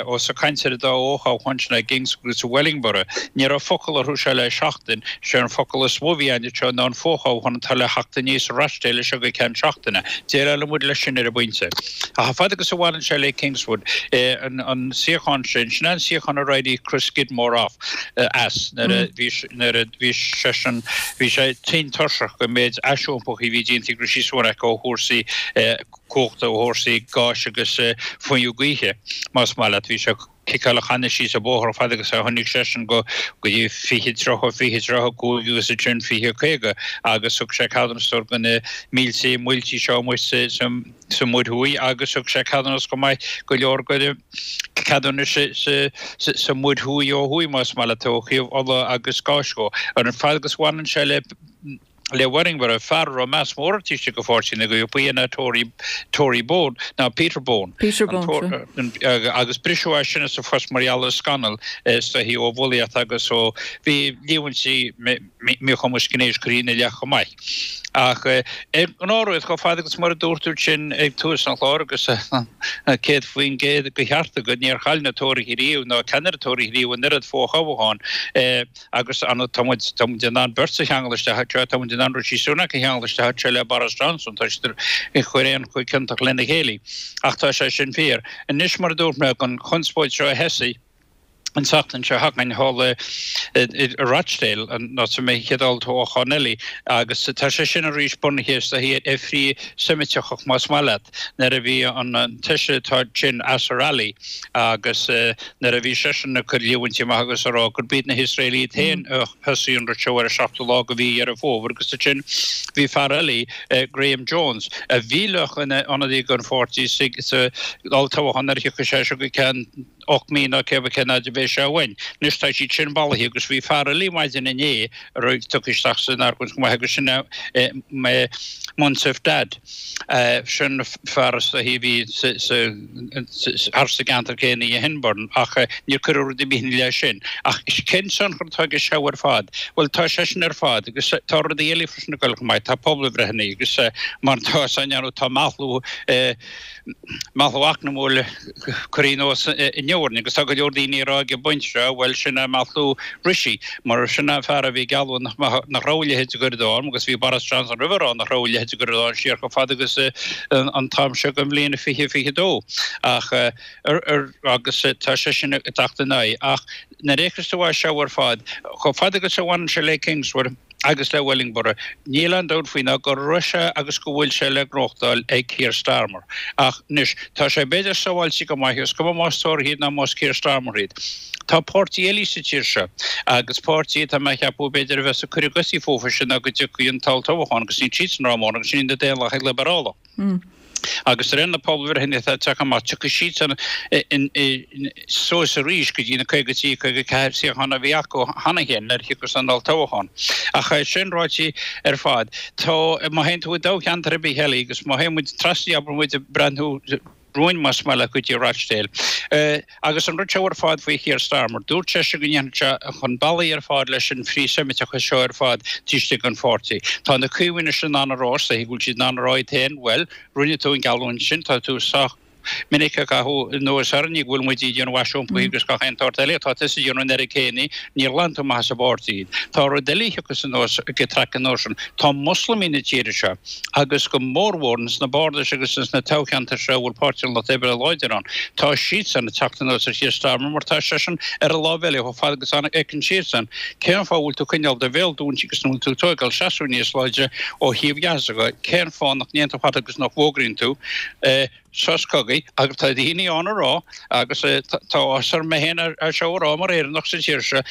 S17: ós ag caint ar an dá fhothoghchán sin i gKingswood agus i Wellingborough, ní raibh focal orthu seo le seachtain, sé an focal is mó a bhí ann anseo ná an fothoghchán atá le theacht aníos i Rochdale seo go ceann seachtaine. Déileálfaidh muid leis sin ar an bpointe. Ach chomh fada agus a bhaineann sé le Kingswood, an suíochán sin, sin é an suíochán ar éirigh Chris Skidmore off, as nuair a bhí, nuair a bhí seisean, bhí sé tinn tuirseach den méid aisiompaithe a bhí déanta ag Rishi Sunak ó chúrsaí cumhachta, ó chúrsaí gáis agus fuinneamh gaoithe, más maith leat. Bhí sé. ciceáil a channa síos an bóthar fad agus a tháinig seisean go go dtí 20, 30, 20, 35 agus ansin 20, 50 agus thug sé ceadúnas do na mílte muilte seo amuigh sa sa sa Mhuir Thuaidh agus thug sé ceadúnas chomh maith go leor de ceadúnais sa sa sa Mhuir Thuaidh ó thuaidh más maith leat ó thaobh ola agus gáis dhó. Ar an fad agus bhaineann sé le le Wellingborough, fear a raibh meas mór air taobh istigh de pháirtí na gCaomhach, ba é ná Tory, Tory Bone, ná Peter Bone.
S1: Peter Bone,
S17: sea. Agus briseadh as sin as a phost mar gheall ar scannal is dóichí ó bhulaíocht agus ó bhí líomhaintí míchumas gnéis curtha ina leith chomh maith. Ach ar an ngnáthrud, chomh fada agus mar a dúirt tú sin ag tús an chláir agus 100% de cheart agat, níor chaill na Tóraithe riamh ná ceannaire Tóraithe riamh an oiread fothoghchán. Agus tá muid, tá muid in ann beirt a cheangal isteach anseo, tá muid in ann Rishi Sunak a cheangal isteach anseo le Boris Johnson, tá siad ag cur aon chomh ciontach lena chéile. Ach tá sé sin fíor. Anois, mar a dúirt mé, an chonspóid seo a thosaigh an tseachtain seo chugainn thall i Rochdale, an áit a mbeidh an chéad olltoghchán eile, agus tá sé sin arís bunaithe is dóichí ar frith-Seimiteachas más maith leat, nuair a bhí an taoiseach atá ansin, Azhar Ali, agus nuair a bhí seisean ag cur líomhaintí amach agus ag rá gurb iad na hIosraelaigh iad féin a thosaigh an rud seo ar an seachtú lá de mhí Dheireadh Fómhair agus ansin bhí fear eile, Graham Jones, a bhí le bheith ina ionadaí don pháirtí sa olltoghchán nuair a thiocfaidh sé seo go ceann 8 mí nó cé cén fhad a bheidh sé uainn. Anois tá siad sin bailithe agus bhí fear eile maidin inné a raibh tugtha isteach san argóint chomh maith agus sin é Munasif Dad. Sin fear is dóichí a bhí thar sa gceantar céanna i Hyndburn ach níor cuireadh rud ar bith ina leith sin. Ach cén tionchar atá aige seo ar fad? Bhuel tá sé sin ar fad agus tá rudaí eile freisin ag dul chomh maith. Tá pobalbhreitheanna agus mar atá á ndéanamh tá meathlú meathlú eacnamúil curtha anuas inniu orainn agus tá go leor daoine ag rá ag an bpointe seo, bhuel sin é meathlú Rishi mar sin é an fear a bhí ag gealladh nach nach raibh a leithéid de ghoir i ndán agus bhí Boris Johnson roimhe ag rá nach raibh a leithéid de ghoir i ndán siar chomh fada agus an t-am seo den bhliain 2022 ach agus tá sé sin ag teacht in aghaidh ach nuair a fhéachas tú air seo ar fad chomh fada agus a bhaineann sé le Kingswood agus le Wellingborough. Níl aon dabht faoi ná go raibh sé agus go bhfuil sé le gnóthachtáil ag Keir Starmer. Ach anois, tá sé b'fhéidir sábháilte go maith, is cuma más Tóraithe iad ná más Keir Starmer iad. Tá páirtí eile sa tír seo, agus páirtí atá mé a cheapadh b'fhéidir a bheas ag cur a gcosaí fúthu sin ná go dtiocfaidh an t-olltoghchán agus níl siadsan rómhór agus sin iad na Daonlathaigh Liobrálach. Agus de réir na pobalbhreitheanna atá ag teacht amach, tiocfaidh siadsan suas arís go dtí na 53, 54 suíochán a bhí acu cheana féin nuair a thiocfas an olltoghchán. Ach é sin ráite ar fad, tá, má théann tú i dtoghcheantar ar bith eile agus má théann muid trasna, abair muid ag breathnú romhainn más maith leat go dtí Rochdale, Agus an rud seo ar fad faoi Keir Starmer, dúirt seisean go ndéanfadh sé chun bealaigh ar fad leis an frith-Seimiteachas seo ar fad taobh istigh den pháirtí. Tá na Caomhaigh anois in ann a rá, is dóichí go bhfuil siad in ann a rá iad féin, bhuel, rinne tú an geallúint sin, tá tú sách minic ag caitheamh anuas orainne go bhfuil muid ag déanamh aisiompaithe agus gach aon tsórt eile, tá tusa ag déanamh an oiread céanna, níor ghlan tú amach as an bpáirtí iad. Tá rud eile a thiocfas anuas ag an traic anuas sin, tá Moslamaigh na tíre seo, agus go mórmhór ins na bardais agus ins na toghcheantair seo a bhfuil Páirtí an Lucht Oibre láidir ann, tá siadsan ag teacht anuas ar Keir Starmer mar tá seisean ar an lámh eile chomh fada agus a fheiceann siadsan. Cén fáth a bhfuil tú ag coinneáil do bhéal dúinte agus nach bhfuil tú ag tóigeáil seasamh níos láidre ó thaobh Ghaza de? Cén fáth nach ndéanann tú tada agus nach bhfógraíonn tú sos cogaidh? Agus tá daoine ann a rá, agus tá áthas orm mé féin é seo a rá mar Éireannach sa tír seo,.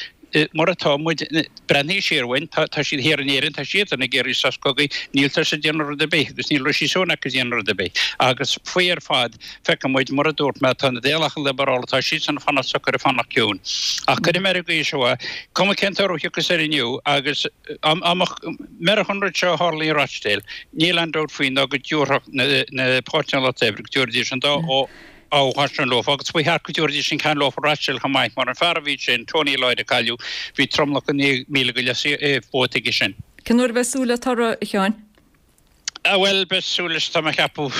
S17: Mar atá muid, breathnaigh siar uainn, tá siad thiar in Éirinn, tá siadsan ag iarraidh sos cogaidh, níltear ag déanamh rud ar bith agus níl Rishi Sunak ag déanamh rud ar bith. Agus faoi ar fad, feiceann muid, mar a dúirt mé, tá na Daonlathaithe Liobrálacha, tá siadsan ag fanacht socair, ag fanacht ciúin. Ach cuirfidh mé ar an gcaoi seo é, cuma cén toradh a thiocfas air inniu agus dá mbeadh an rud seo a tharla i Rochdale, níl aon dabht faoi ná go dtabharfadh na páirtithe an Lucht Oibre, go dtabharfaidís an dá toghchán sin leofa agus ba cheart go dtabharfaidís an ceann leofa i Rochdale chomh maith mar an fear a bhí ansin, Tony Lloyd a cailleadh, bhí tromlach de 9,000 go leith vóta aige sin.
S1: Cén uair a bheidh súil le toradh, a Sheáin?
S17: Bhuel, beidh súil leis, tá mé ag ceapadh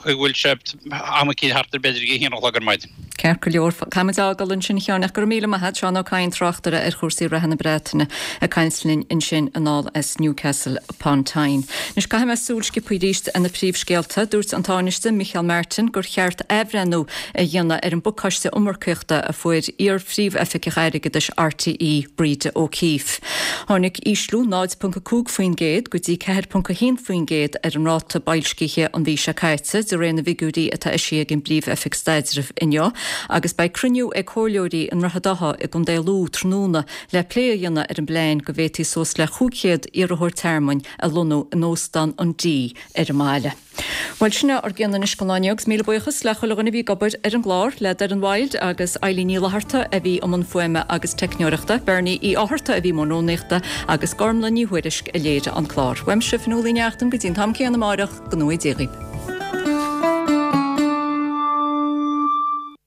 S17: go bhfuil sé am eicínt thart ar b'fhéidir ag a haon a chlog ar maidin.
S1: Ceart go leor, caithfimid a fhágáil ansin a Sheáin ach go raibh míle maith a't, Seán Ó Cadhain, tráchtaire ar chúrsaí reatha na Breataine, ag caint linn ansin anall as Newcastle upon Tyne. Anois caithfidh mé súil sciobtha arís ar na príomhscéalta. Dúirt an Tánaiste Micheál Martin gur cheart athbhreithniú a dhéanamh ar an bpacáiste iomarcaíochta a fuair iar-phríomhoifigeach airgeadais RTÉ, Breda O'Keeffe. Tháinig ísliú 0.5% go dtí 4.1% ar an ráta boilscithe an mhí seo caite, de réir na bhfigiúirí atá eisithe ag an bPríomh-Oifig Staidrimh inniu, agus beidh cruinniú ag comhairleoirí i nDroichead Átha i gContae Lú tráthnóna le plé a dhéanamh ar an bplean go bhféadfaí suas le 500 iarrthóir tearmainn a lonnú in Óstán an D ar an mbaile. Bhuel, sin é ár gcion anois don lá inniu agus míle buíochas le chuile dhuine a bhí ag obair ar an gclár, le Doireann Wilde agus Eilín Ní Fhlatharta a bhí i mbun fuaime agus teicneoireachta, Bernie Uí Fhátharta a bhí i mbun rúnaíochta agus Gormlaith Ní Thuairisg a léirigh an clár. Uaimse, Fionnuala Ní Neachtain, go dtí an t-am céanna amáireach, go ngnóthaí Dia dhaoibh.